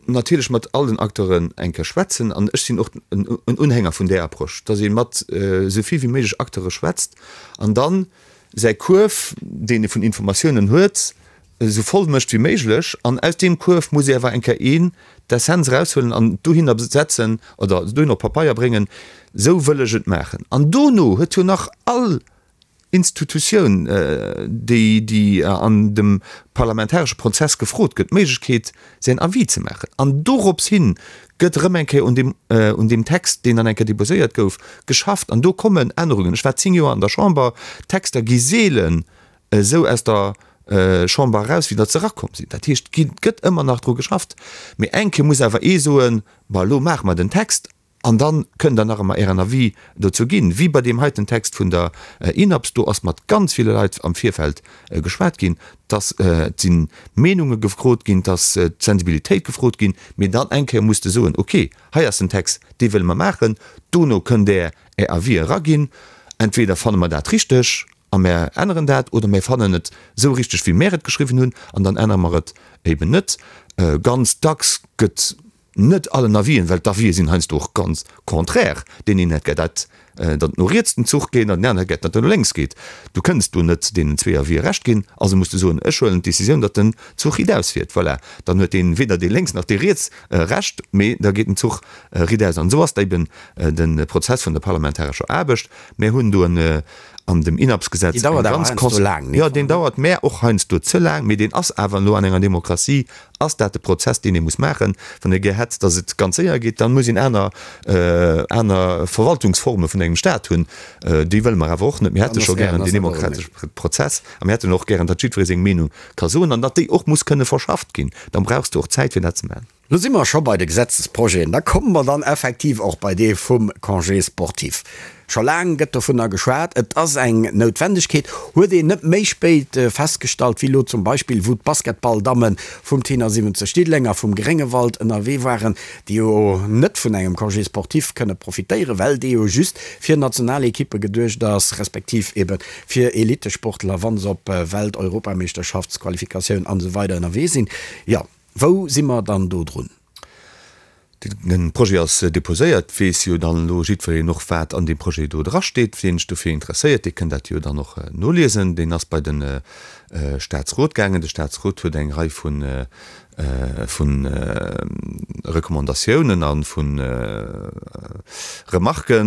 D: natierlech mat all den Acteuren eng Kéier schwätzen, an ech sinn och en Unhänger vun där Approche, dass ee mat esou vill wéi méiglech Acteure schwätzt an dann säi Kuerf, deen ee vun Informatiounen huet, esou voll mécht wéi méiglech. An aus deem Kuerf muss ee awer eng Kéier een d'Essenz eraushuelen an dohinner setzen oder dohinner op Papeier bréngen, esou wëll ech et maachen. An dono huet jo nach all Institutioun, déi, déi an dem parlamentaresche Prozess gefrot gëtt, d'Méiglechkeet, säin Avis ze maachen. An dorops hin gëtt erëm eng Kéier un deem, un deem Text, deen dann eng Kéier déposéiert gouf, geschafft. An do kommen Ännerungen. Ech war 10 Joer an der Chamber. D'Texter gi seelen esou aus der Chamber eraus, wéi datt se erakomm sinn. Dat heescht, et gëtt ëmmer nach dru geschafft. Mee eng Kéier muss awer ee soen, Bon, elo maache mer den Text. An da kënnt Der nach ëmmer Ären Avis dozou ginn. Wéi bei deem heiten Text vun der INAPS, do ass mat ganz ville Leit am Virfeld geschwat ginn, dass et si Meenunge gefrot ginn, dass d'Sensibilitéit gefrot ginn, mee dann eng Kéier muss de soen, okay, hei ass den Text, dee wëlle mer maachen, dono kënnt Der Är Avis eraginn, entweder fanne mer dat richteg a mär änneren dat oder mär fannen et esou richteg, wéi mär et geschriwwen hunn an dann ännere mer et eben net. Ganz dacks gëtt Net allen Avisen, well d'Avisë sinn heiansdo och ganz contraire. Deen een hätt gär, dat datt et no riets den Zuch geet an deen aneren hätt gär, datt en no lénks geet. Du kënns do net deenen zwee Avisë Recht ginn, also muss de soen, ech huelen d'Decisioun, datt den Zuch riitaus fiert. Voilà, dann huet deen weder dee lénks nach dee riets Recht, mee da geet den Zuch riitaus. An esou ass da eben de Prozess vun der parlamentarescher Aarbecht. Mär hunn do en an dem INAPS-Gesetz
C: eng ganz
D: cons. Jo, deen dauert mär och heiansdo ze laang, mee deen ass awer elo an enger Demokratie Ass dat de Prozess, deen ee muss maachen? Wann ee gär hätt, datt et ganz séier geet, da muss een aner, aner Verwaltungsforme vun engem Staat hunn. Déi wëlle mer awer och net. Mir hätte scho gären deen demokratesche Prozess a mir hätten och gären, datt jiddweree seng Meenung ka soen an datt déi och muss kënne verschafft ginn. Dann brauchs de och Zäit, fir dat ze maachen.
C: Lo si mer scho bei de Gesetzesprojeten. Da komme mer dann effektiv och bei dee vum Congé sportif. Scho laang gëtt dovunner geschwat, et ass eng Noutwendegkeet, huet een net méi spéit festgestallt wéi elo zum Beispill, wou d'Basketballdamme vum Tenor. 79 Diddelenger vum Gréngewald ënnerwee waren, déi jo net vun engem Congé sportif kënne profitéieren, well dee jo just fir Nationalekippe geduecht ass, respektiv ebe fir Elittesportler, wa se op Welt-, Europameeschterschaftsqualifikatioun an esou weider ënnerwee sinn. Jo, wou si mer dann do drun?
D: De Projet ass déposéiert, weess jo dann elo jiddwereen och, wat an deem Projet do drasteet. Wien sech dofir interesséiert, dee kënn dat jo dann och noliesen. Deen ass bei de Statsrot gaangen. De Statsrot huet eng Rei vu Recommandatiounen a vu Remarquë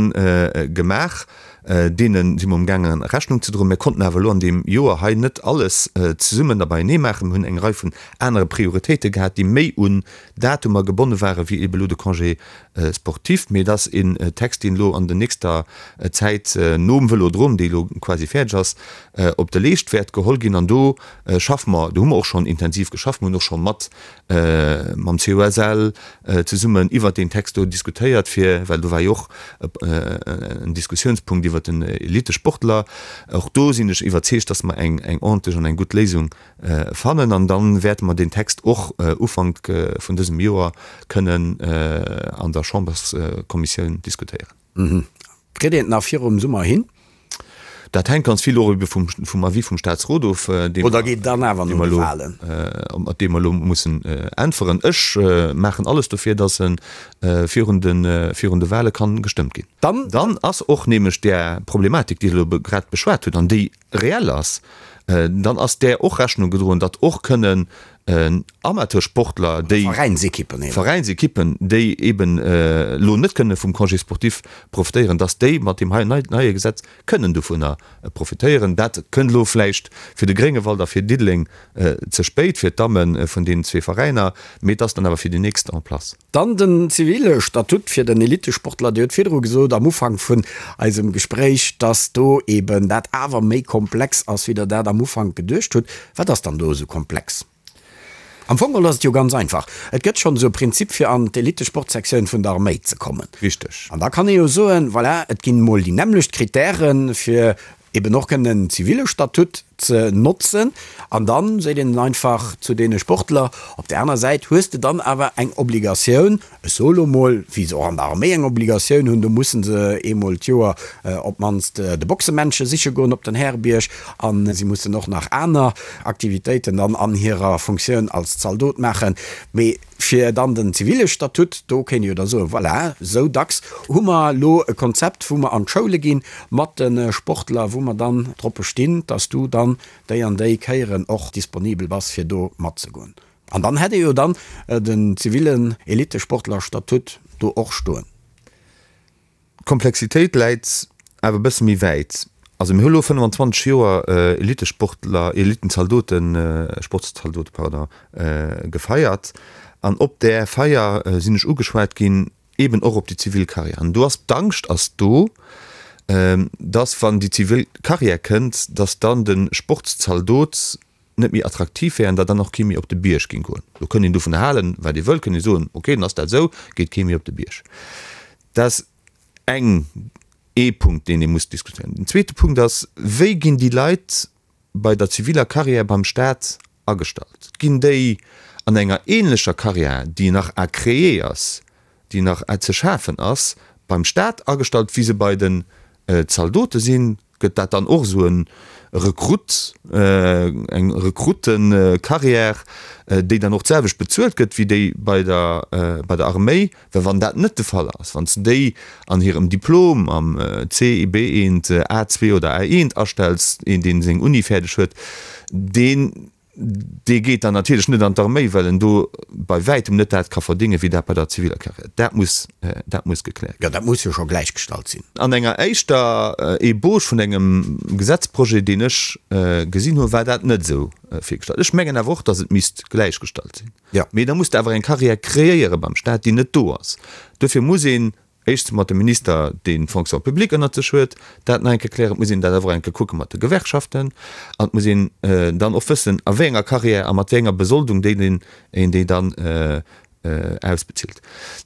D: gemaach. Deene si mer umgaangen, Rechnung ze droen. Mir konnten awer elo an deem Joer hei net alles zesummen a beienee maachen. Mir hunn eng Rei vun anere Prioritéite gehat, déi méi un Datumer gebonne ware wéi ebe elo de Congé sportif. Mee et ass een Text, deen elo an der nächster Zäit nom Vëlodrom, dee elo quasi fäerdeg ass, op de Leescht wäert geholl ginn. An do schaffe mer, do hu mer och schonn intensiv geschafft. Mir hunn och scho mat mam COSL zesummen iwwert deen Text do diskutéiert, fir, well do war jo och en Diskussiounspunkt iwwert den Elitesportler. Och do sinn ech iwwerzeegt, dass mer eng ordentlech an eng gutt Léisung fannen an da wäerte mer deen Text och Ufank vun dësem Joer kënnen an der Chamberskommissioun diskutéieren.
C: Kritt een et nach virum Summer hin?
D: Dat hänkt ganz vill och ebe vum Avis vum Staatsrot of, dee mer elo, op dee mer elo mussen äntweren. Ech maachen alles dofir, datt e virun de Wale kann gestëmmt ginn. Dann ass och nämlech där Problematik, déi Der elo grad beschwat hutt an déi reell ass, dann ass där och Rechnung gedroen, datt och kënnen Amateursportler, déi
C: Veräinsekippen
D: eben. Veräinsekippen, déi eben elo net kënne vum Congé sportif profitéieren, datt déi mat deem hei neie Gesetz kënnen dovunner profitéieren. Dat kënnt elo vläicht fir de Gréngewald a fir Diddeleng ze spéit, fir d'Damme vun deenen zwee Veräiner, mee et ass dann awer fir déi nächst en place.
C: Dann den zivile Statut fir den Elitesportler. Dir hutt virdru gesot am Ufank vun eisem Gespréich, dass do eben dat awer méi komplex ass, wéi Der dat am Ufank geduecht hutt. Wat ass dann do esou komplex? Am Fong geholl ass et jo ganz einfach. Et gëtt schonn esou e Prinzip, fir an d'Elitesportsektioun vun der Arméi ze kommen.
D: Richteg.
C: An da kann ee jo soen, voilà, et ginn emol déi nämmlecht Kritäre fir eben och kënnen en zivile Statut ze notzen an dann seet een einfach zu deene Sportler, op där aner Säit hues de dann awer eng Obligatioun, ech soe lo mol, wéi se och an der Arméi eng Obligatioun hunn, do mussen se eemol d'Joer op d'mannst de Boxemännche siche goen op den Härebierg a si mussen och nach aner Aktivitéiten dann an hirer Funktioun als Zaldot maachen. Mee Fir dann den zivile Statut, do kéint ee jo da soen, voilà, esou dacks hu mer elo e Konzept, wou mer an d'Schoule gi mat de Sportler, wou mer dann drop bestinn, dass du dann déi an déi Kéieren och disponibel bass, fir do matzegoen. An dann hätt ee jo dann den zivillen Elitesportlerstatut do och stoen.
D: D'Komplexitéit läit awer e bësse méi wäit. Also mir hu lo 25 Joer Elitesportler, Elitenzaldoten, Sportszaldote, pardon, gefeiert an op där Feier sinn ech ugeschwat ginn, eben och op déi zivil Karriär. An do ass d'Angscht ass do, dass wann déi zivil Karriär kënnt, dass dann de Sportszaldot net méi attraktiv wär an datt dann och kee méi op de Bierg géing goen. Do kënnt een dovun halen, wat ee wëllt, kënnt ee soen, ok, dann ass dat esou, geet kee méi op de Bierg. Dat ass eng, ee Punkt, deen ee muss diskutéieren. Den zweete Punkt ass, Wéi ginn déi Leit bei der ziviller Carrière beim Staat agestallt? Ginn déi an enger ähnlecher Carrière, déi nach à créer ass, déi nach ze schafen ass, beim Staat agestallt, wéi se bei den Zaldote sinn? Gëtt dat dann och esou e Rekrutt, eng Rekruttencarrière, déi dann och d'selwecht bezuelt gëtt wéi déi bei der, bei der Arméi? Well wann dat net de Fall ass, wann s de déi an hirem Diplom am C, B1, A2 oder A1 astells, een deen seng Uni fäerdeg huet, deen Dee geet dann natierlech net an d'Arméi, well en do bei wäitem net dat ka verdéngen, wéi dat bei der ziviler Carrière. Dat muss, dat muss gekläert
C: ginn. Jo, dat muss jo scho gläichgestallt sinn.
D: An enger éischter Ebauche vun engem Gesetzprojet, deen ech gesinn hunn, war dat net esou virgestallt. Ech mengen awer och, datt et misst gläichgestallt sinn. Mee da muss de awer eng Carrière kreéiere beim Stat, déi net do ass. Duerfir muss een Éischtens mat dem Minister, deen d'Fonction publique ënnert sech huet, dat nach eng Kéier klären. Et muss een dat awer och eng Kéier kucke mat de Gewerkschaften. An et muss een dann och wëssen, a wéi enger Carrière a mat wéi enger Besoldung déi een een déi dann ausbezilt.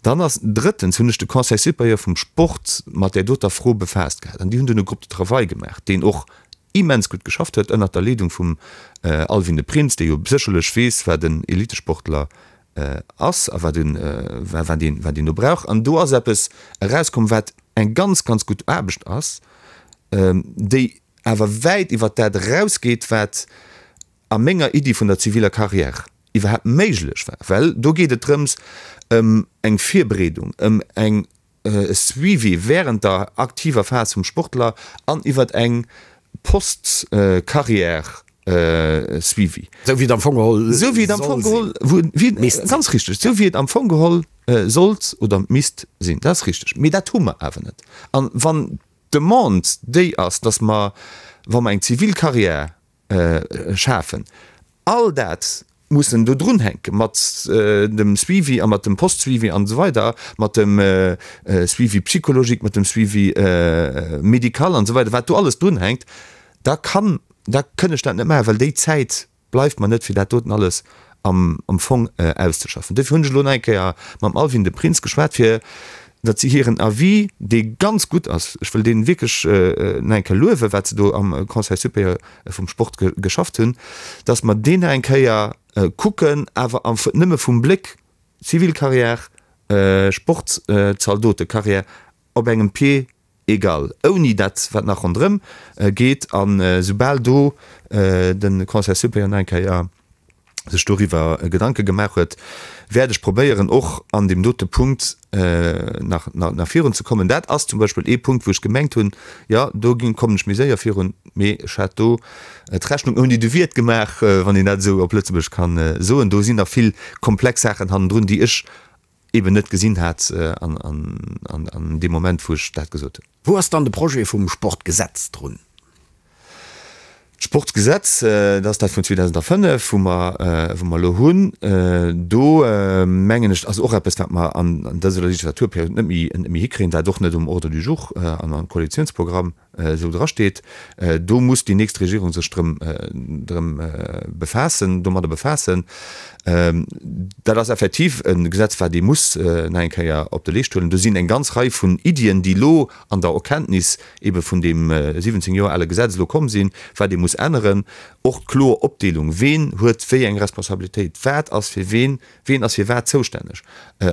D: Dann ass drëttens hunn ech de Conseil supérieur vum Sport mat där doter Fro befaasst gehat. An déi hunn dunn e Groupe de travail gemaach, deen och. immens gutt geschafft huet, ënnert der Leedung vum Alwin de Prins, dee jo sécherlech weess, wat en Elitesportler ass a wat een do brauch. An do ass eppes erauskomm, wat eng ganz, ganz gutt Aarbecht ass, déi awer wäit iwwert dat erausgeet, wat a menger Iddi vun der ziviler Carrière iwwerhaapt méiglech war, well do geet et drëms ëm eng Virbereedung, ëm eng e Suivi während der aktiver Phas vum Sportler an iwwert eng Post-Carrière Suivi.
C: Esou wéi et am Fong geholl
D: Esou wéi et am Fong geholl misst sinn. Ganz richteg, esou wéi et am Fong geholl sollt oder misst sinn. Dat ass richteg. Mee dat hu mer awer net. An wann d'Demande déi ass, dass mer, wa mer eng zivil Carrière schafen. All dat mussen do drunhänke mat dem Suivi a mat dem Post-Suivi an esou weider, mat dem Suivi psychologique, mat dem Suivi médical an esou weider, wat do alles drunhänkt, da kann, da kënn ech dat net maachen, well déi Zäit bleift mer net, fir dat doten alles am Fong auszeschaffen. Dofir hunn ech elo nach eng Kéier mam Alwin de Prins geschwat, fir datt si hiren Avis, dee ganz gutt ass, ech wëll dee wierklech nach eng Kéier luewen, wat se do am Conseil supérieur vum Sport geschafft hunn, datt mer deen nach eng Kéier kucken, awer nëmme vum Bléck Zivilcarrière, Sportzaldotecarrière op engem Pied égal, ouni dat wat nach ronderëm geet. A soubal do de Conseil supérieur nach eng Kéier sech doriwwer Gedanke gemaach huet, wäert ech probéieren och an deem dote Punkt nach nach virun ze kommen. Dat ass zum Beispill ee Punkt, wou ech gemengt hunn, jo do kommen ech méi séier virun, mee ech hat do d'Rechnung ouni de Wiert gemaach, wann een dat esou op Lëtzebuergesch kann soen. Do sinn nach vill komplex Saachen hannendrun, déi ech eben net gesinn hat an deem Moment, wou ech dat gesot hunn.
C: Wou ass dann de Projet vum Sportgesetz drun?
D: D'Sportgesetz, dat ass dat vun 2005, wou mer, wou mer elo hunn. Do mengen ech, ass och eppes, wat mer an dëser Legislaturperiod net méi, net méi hikréien, wat och net um Ordre du jour an am Koalitionsprogramm esou drasteet. Do muss déi nächst Regierung sech drëm, drëm befaassen, domadder befaassen. Dat ass effektiv e Gesetz, wat ee muss nach eng Kéier op de Leescht huelen. Do sinn eng ganz Rei vun Iddien, déi elo an der Erkenntnis ebe vun deem 17 Joer ale Gesetz elo komm sinn, wat ee muss änneren. Och d'kloer Opdeelung, ween huet wéi eng Responsabilitéit, wat ass fir ween, ween ass fir wat zoustänneg,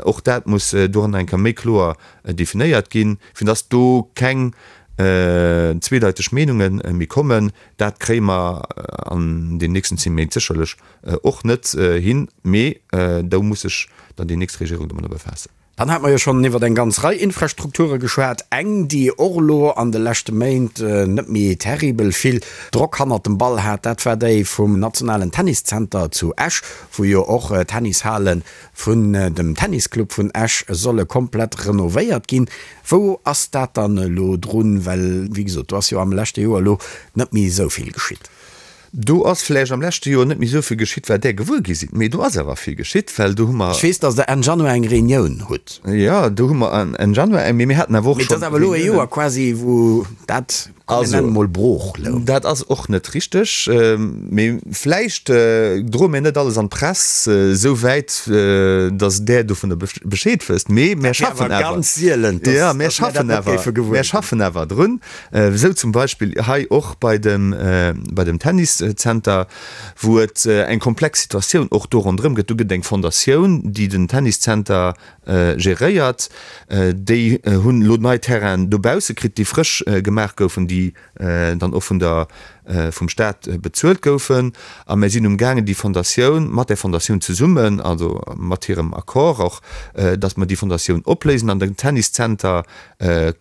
D: och dat muss doranner eng Kéier méi kloer definéiert ginn, fir dass do keng zweedeiteg Meenunge méi kommen. Dat kréie mer an den nächsten 10 Méint sécherlech och net hin, mee do muss sech dann déi nächst Regierung domadder befaassen.
C: Dann hate mer jo schonn iwwer eng ganz Rei Infrastrukture geschwat. Eng, déi och elo an de leschte Méint net méi terribel vill Drock hannert dem Ball hat, dat war déi vum nationalen Tenniszenter zu Esch, wou jo och d'Tennishale vun dem Tennisclub vun Esch solle komplett renovéiert ginn. Wou ass dat dann elo drun? Well, wéi gesot, do ass jo am leschte Joer elo net méi esou vill geschitt.
D: Do ass vläicht am leschte Joer net méi esou vill geschitt, wat Där gewuer gi sidd, mee do ass awer vill geschitt, well do hu mer.
C: Ech weess, datt Der Enn Januar eng Reunioun hutt.
D: Jo, do hu mer Enn Januar eng, mee mir haten awer och
C: schonn. Mee et ass awer elo e Joer quasi, wou dat, komm mir nennen emol, brooch
D: louch. Dat ass och net richteg, mee vläicht droe mir net alles an d'Press esou wäit, datt Där dovunner Bescheed wësst, mee mir schaffen awer.
C: Dat wär awer ganz sielen, datt
D: mir dat net géife gewuer ginn. Mir schaffen awer drun. Esou zum Beispill hei och bei dem, bei dem Tenniszenter, wou et eng komplex Situatioun och do ronderëm gëtt. Do gëtt et eng Fondatioun, déi den Tenniszenter geréiert. Déi hunn elo nei Terrainen dobausse kritt, déi frësch gemaach goufen, déi dann och vun der, vum Staat bezuelt goufen. A mir sinn umgaangen, déi Fondatioun, mat där Fondatioun zesummen, also mat hirem Accord och, datt mer déi Fondatioun opléisen an den Tenniszenter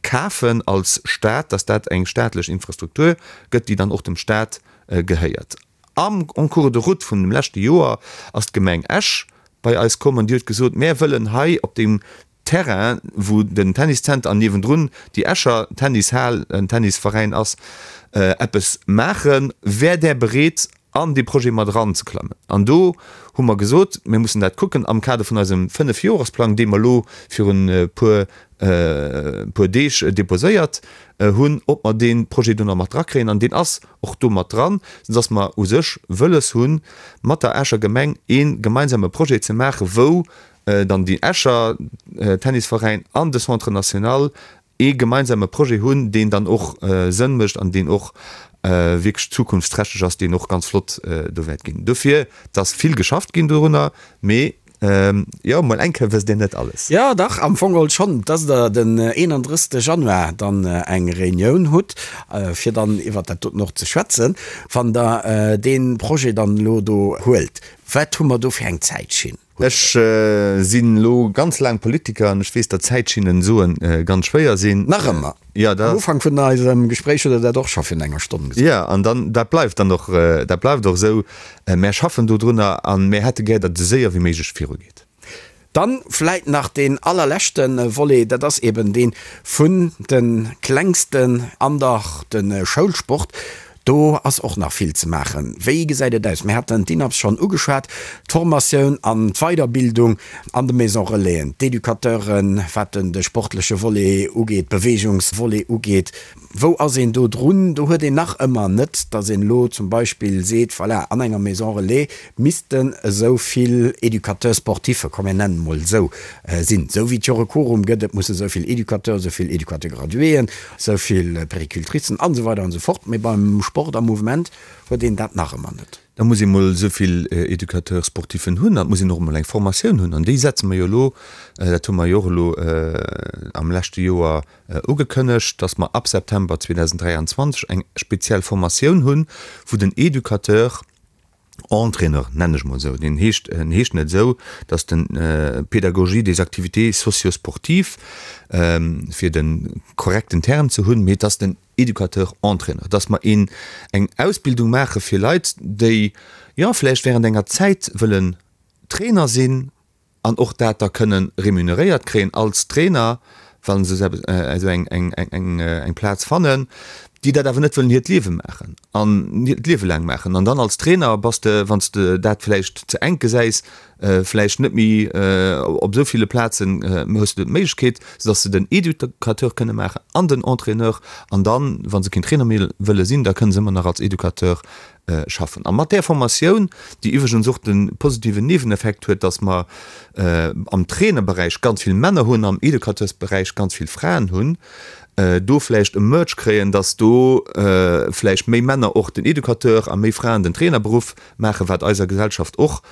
D: kafen als Staat, dass dat eng staatlech Infrastruktur gëtt, déi dann och dem Staat gehéiert. Am en cours de route vun dem leschte Joer ass d'Gemeng Esch bei eis komm an déi huet gesot, Mär wëllen hei op deem Terrain, wou den Tenniszenter an niewendrun déi Escher Tennishal, en Tennisveräin ass, eppes maachen. Wär Där bereet, an dee Projet mat eranzeklammen. An do hu mer gesot, mir mussen dat kucken am Kader vun eisem Fënnefjoresplang, dee mer elo virun e puer, puer Deeg deposéiert hunn, ob mer dee Projet do nach mat drakréien. An deen ass och do mat dran, soudass mer u sech wëlles hunn, mat der Escher Gemeng ee gemeinsame Projet ze maachen, wou dann déi Escher Tennisveräin an de Centre national ee gemeinsame Projet hunn, deen dann och Sënn mécht an deen och. wierklech zukunftsträchteg ass, deen och ganz flott do wäert ginn. Dofir, et ass vill geschafft ginn dorunner, mee jo, mol eng Kéier wësst Dir net alles.
C: Jo, dach, am Fong geholl schonn, dass Der den 31. Januar dann eng Reunioun hutt, fir dann iwwert dat doten och ze schwätzen. Wann Der dee Projet dann elo do huelt, wat hu mer do fir eng Zäitschinn?
D: Ech sinn elo ganz laang Politiker an ech weess, datt Zäitschinnen soen ganz schwéier sinn.
C: Nach ëmmer.
D: Jo, dat.
C: Am Ufank vun eisem Gespréich hutt Der dat och scho virun enger Stonn
D: gesot. Jo, an dann, dat bleift dann och, dat bleift och esou. Mär schaffen dodrunner a mär hätte gär, datt et esou séier wéi méiglech virugeet.
C: Dann vläit nach deen allerleschte Volet, dat ass eben dee vun de Klengsten an der de Schoulsport. Do ass och nach vill ze maachen. Wéi gesäit et aus? Mir haten d'INAPS schonn ugeschwat, d'Formatioun an d'Weiderbildung an de Maison Relaisen, d'Educateuren, wat de sportleche Volet ugeet, d'Beweegungsvolet ugeet. Wou ass een do drun? Do huet een nach ëmmer net, datt een elo zum Beispill seet, voilà, an enger Maison Relais missten esou vill Éducateurs sportifs, komm mir nennen emol esou, sinn, esou wéi et jo e Quorum gëtt, et musse esou vill Éducateurs, esou vill Éducateurs graduéen, esou vill Péricultricen an esou weider an esou fort. Mee beim Sport a Mouvement huet een dat nach ëmmer net.
D: Da muss ee mol esou vill Éducateurs sportifen hunn an et muss een och emol eng Formatioun hunn an déi setze mer jo elo, dat hu mer jo och elo am leschte Joer ugekënnegt, dass mer ab September 2023 eng speziell Formatioun hunn, wou den Educateur Entraîneur, nennen ech mol esou, deen heescht, en heescht net esou, dass den Pédagogie des activités socio-sportives, fir de korrekten Term ze hunn, mee et ass den Educateur Entraîneur, dass mer een eng Ausbildung maache fir Leit, déi, jo, vläicht während enger Zäit wëllen Trainer sinn, an och dat da kënnen remuneréiert kréien als Trainer, wa se esou eng Plaz fannen, déi dat awer net wëllen hiert Liewe maachen an hiert Liewe laang maachen. An dann als Trainer bass de, wann s de dat vläicht ze enk gesäis, vläicht net méi op esou ville Plazen hues de d'Méiglechkeet, soudass se den Educateur kënne maachen an den Entraîneur. An dann, wa se keen Trainer méi wëlle sinn, da kënne se ëmmer nach als Educateur schaffen. A mat där Formatioun, déi iwwregens och de positiven Nieweneffekt huet, dass mer am Trainerberäich ganz vill Männer hunn, am Educateursberäich ganz vill Fraen hunn, do vläicht e Merge kréien, dass do vläicht méi Männer och den Educateur a méi Fraen den Trainerberuff maachen, wat eiser Gesellschaft och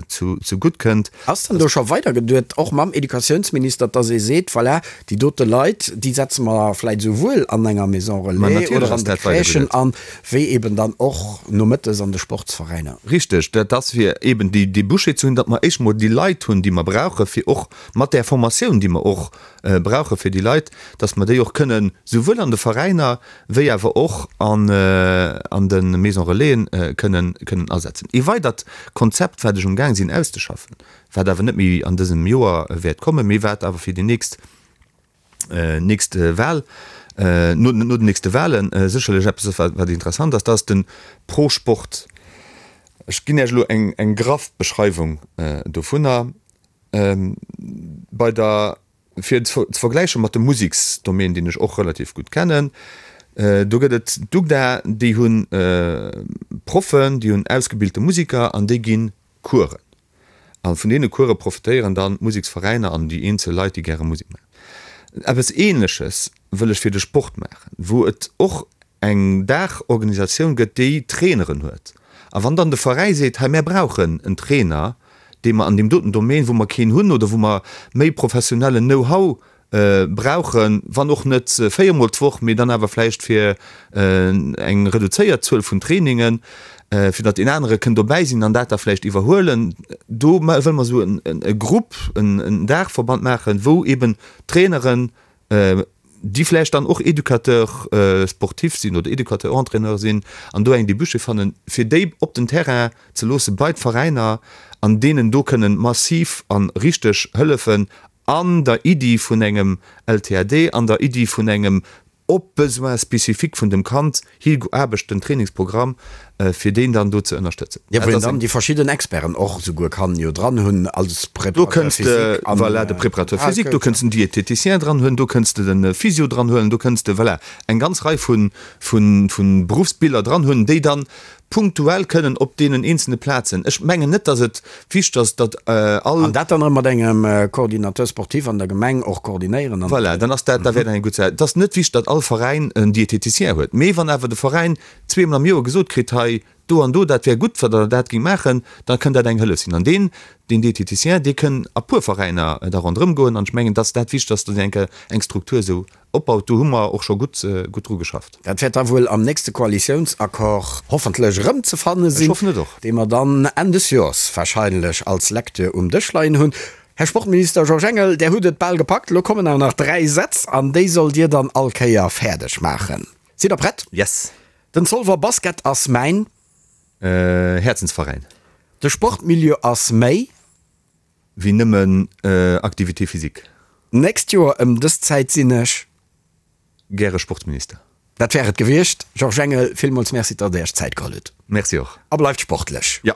D: zu gutt kënnt.
C: Ass dann do scho weidergeduet, och mam Educatiounsminister, dass ee seet, voilà, déi dote Leit, déi setze mer vläicht esouwuel an enger Maison relais oder an de Crèchen an, wéi eben dann och nomëttes an de Sportsveräiner?
D: Richteg, dat ass fir eben déi Débouchés ze hunn, datt mer éischt emol déi Leit hunn, déi mer brauchen, fir och mat där Formatioun, déi mer och brauche fir déi Leit, datt mer déi och kënnen souwuel an de Veräiner wéi awer och an de Maison Relaisen kënnen kënnen asetzen. Ee weidert Konzept, wat ech um Gaang sinn auszeschaffen, wat awer net méi an dësem Joer wäert kommen, mee wat awer fir déi nächst nächst Wahl, no no den nächste Wahlen sécherlech eppes ass, wat wat interessant ass, dat ass de Pro-Sport. Ech ginn Iech elo eng eng graff Beschreiwung dovunner. Bei der Fir et ze vergläiche mat dem Museksdomaine, deen ech och relativ gutt kennen, do gëtt et d'UGDA, déi hu Proffen, déi hunn ausgebilte Museker an déi gi Coursen. A vun deene Course profitéieren dann d'Museksveräiner an déi eenzel Leit, déi gäre Musek maachen. Eppes Ähnleches wëll ech fir de Sport maachen, wou et och eng Daachorganisatioun gëtt, déi Traineren huet. A wann dann de Veräi seet, hei mär brauchen en Trainer, dee mer an deem doten Domaine, wou mer keen hunn oder wou mer méi professionellen Know-how brauchen, wann och net véiermol d'Woch, mee dann awer vläicht fir eng reduzéiert Zuel vun Trainingen, fir datt een anere kënn dobäi sinn an dat da vläicht iwwerhuelen. Do wëlle mer esou e Grupp, en Daachverband maachen, wou eeben Traineren, déi vläicht dann och Éducateur sportif sinn oder Éducateur entraîneur sinn an do eng Débouché fannen, fir déi op den Terrain ze loosse bei d'Veräiner an deenen do kënnen massiv a richteg hëllefen an der Iddi vun engem LTAD, an der Iddi vun engem op d'Besoins spécifiques vun dem Kand higeaarbechten Trainingsprogramm, fir deen dann do ze ënnerstëtzen.
C: Jo, wou een dann déi verschidden Experten och esouguer kann jo dran hunn als
D: Do Préparateur kënns de, physique an voilà, de Préparateur physique, do kënns den Diététicien dran huelen, do kënns de de Physio dran huelen, do kënns de, voilà, eng ganz Rei vu, vu, vu Beruffsbiller dran hunn, déi dann. punktuell kënnen op deenen eenzelne Plazen. Ech mengen net, datt et wichteg ass, datt all.
C: An dat dann erëm mat engem Coordinateur sportif an der Gemeng och koordinéieren
D: an. Voilà, dann ass dat, da wär dat eng gutt Saach. Et ass net wichteg, datt all Veräin en Diététicien huet, mee wann awer de Veräin zweemol am Joer gesot kritt, hei do an do, dat wär gutt, wa der dat géingt maachen, da kënnt dat eng Hëllef sinn. An deen, deen Diététicien, dee kënn a puer Veräiner da ronderëm goen. An ech mengen, datt dat wichteg ass, datt een eng Kéier eng Struktur esou opbaut. Do hu mer och scho gutt, gutt dru geschafft.
C: Dat wäert da wuel am nächste Koalitiounsaccord hoffentlech erëmzefanne sinn,
D: Ech hoffen et och.
C: dee mer dann Enn des Joers wahrscheinlech als Lecture um Dësch leien hunn. Här Sportminister Georges Engel, Där hutt et bal gepackt. Elo kommen awer nach 3 Sätz an déi sollt Dir dann all Kéier fäerdeg maachen. Sidd Der prett?
D: Yes.
C: Den Zolwer Basket ass mäin.
D: Häerzensveräin.
C: De Sportmilieu ass méi.
D: Wéi nëmmen Activité physique.
C: D'nächst Joer ëm dës Zäit sinn ech.
D: Gäre Sportminister.
C: Dat wär et gewiescht. Georges Engel, villmools Merci, datt Der Iech Zäit geholl hutt.
D: Merci och.
C: A bleift sportlech.
D: Jo.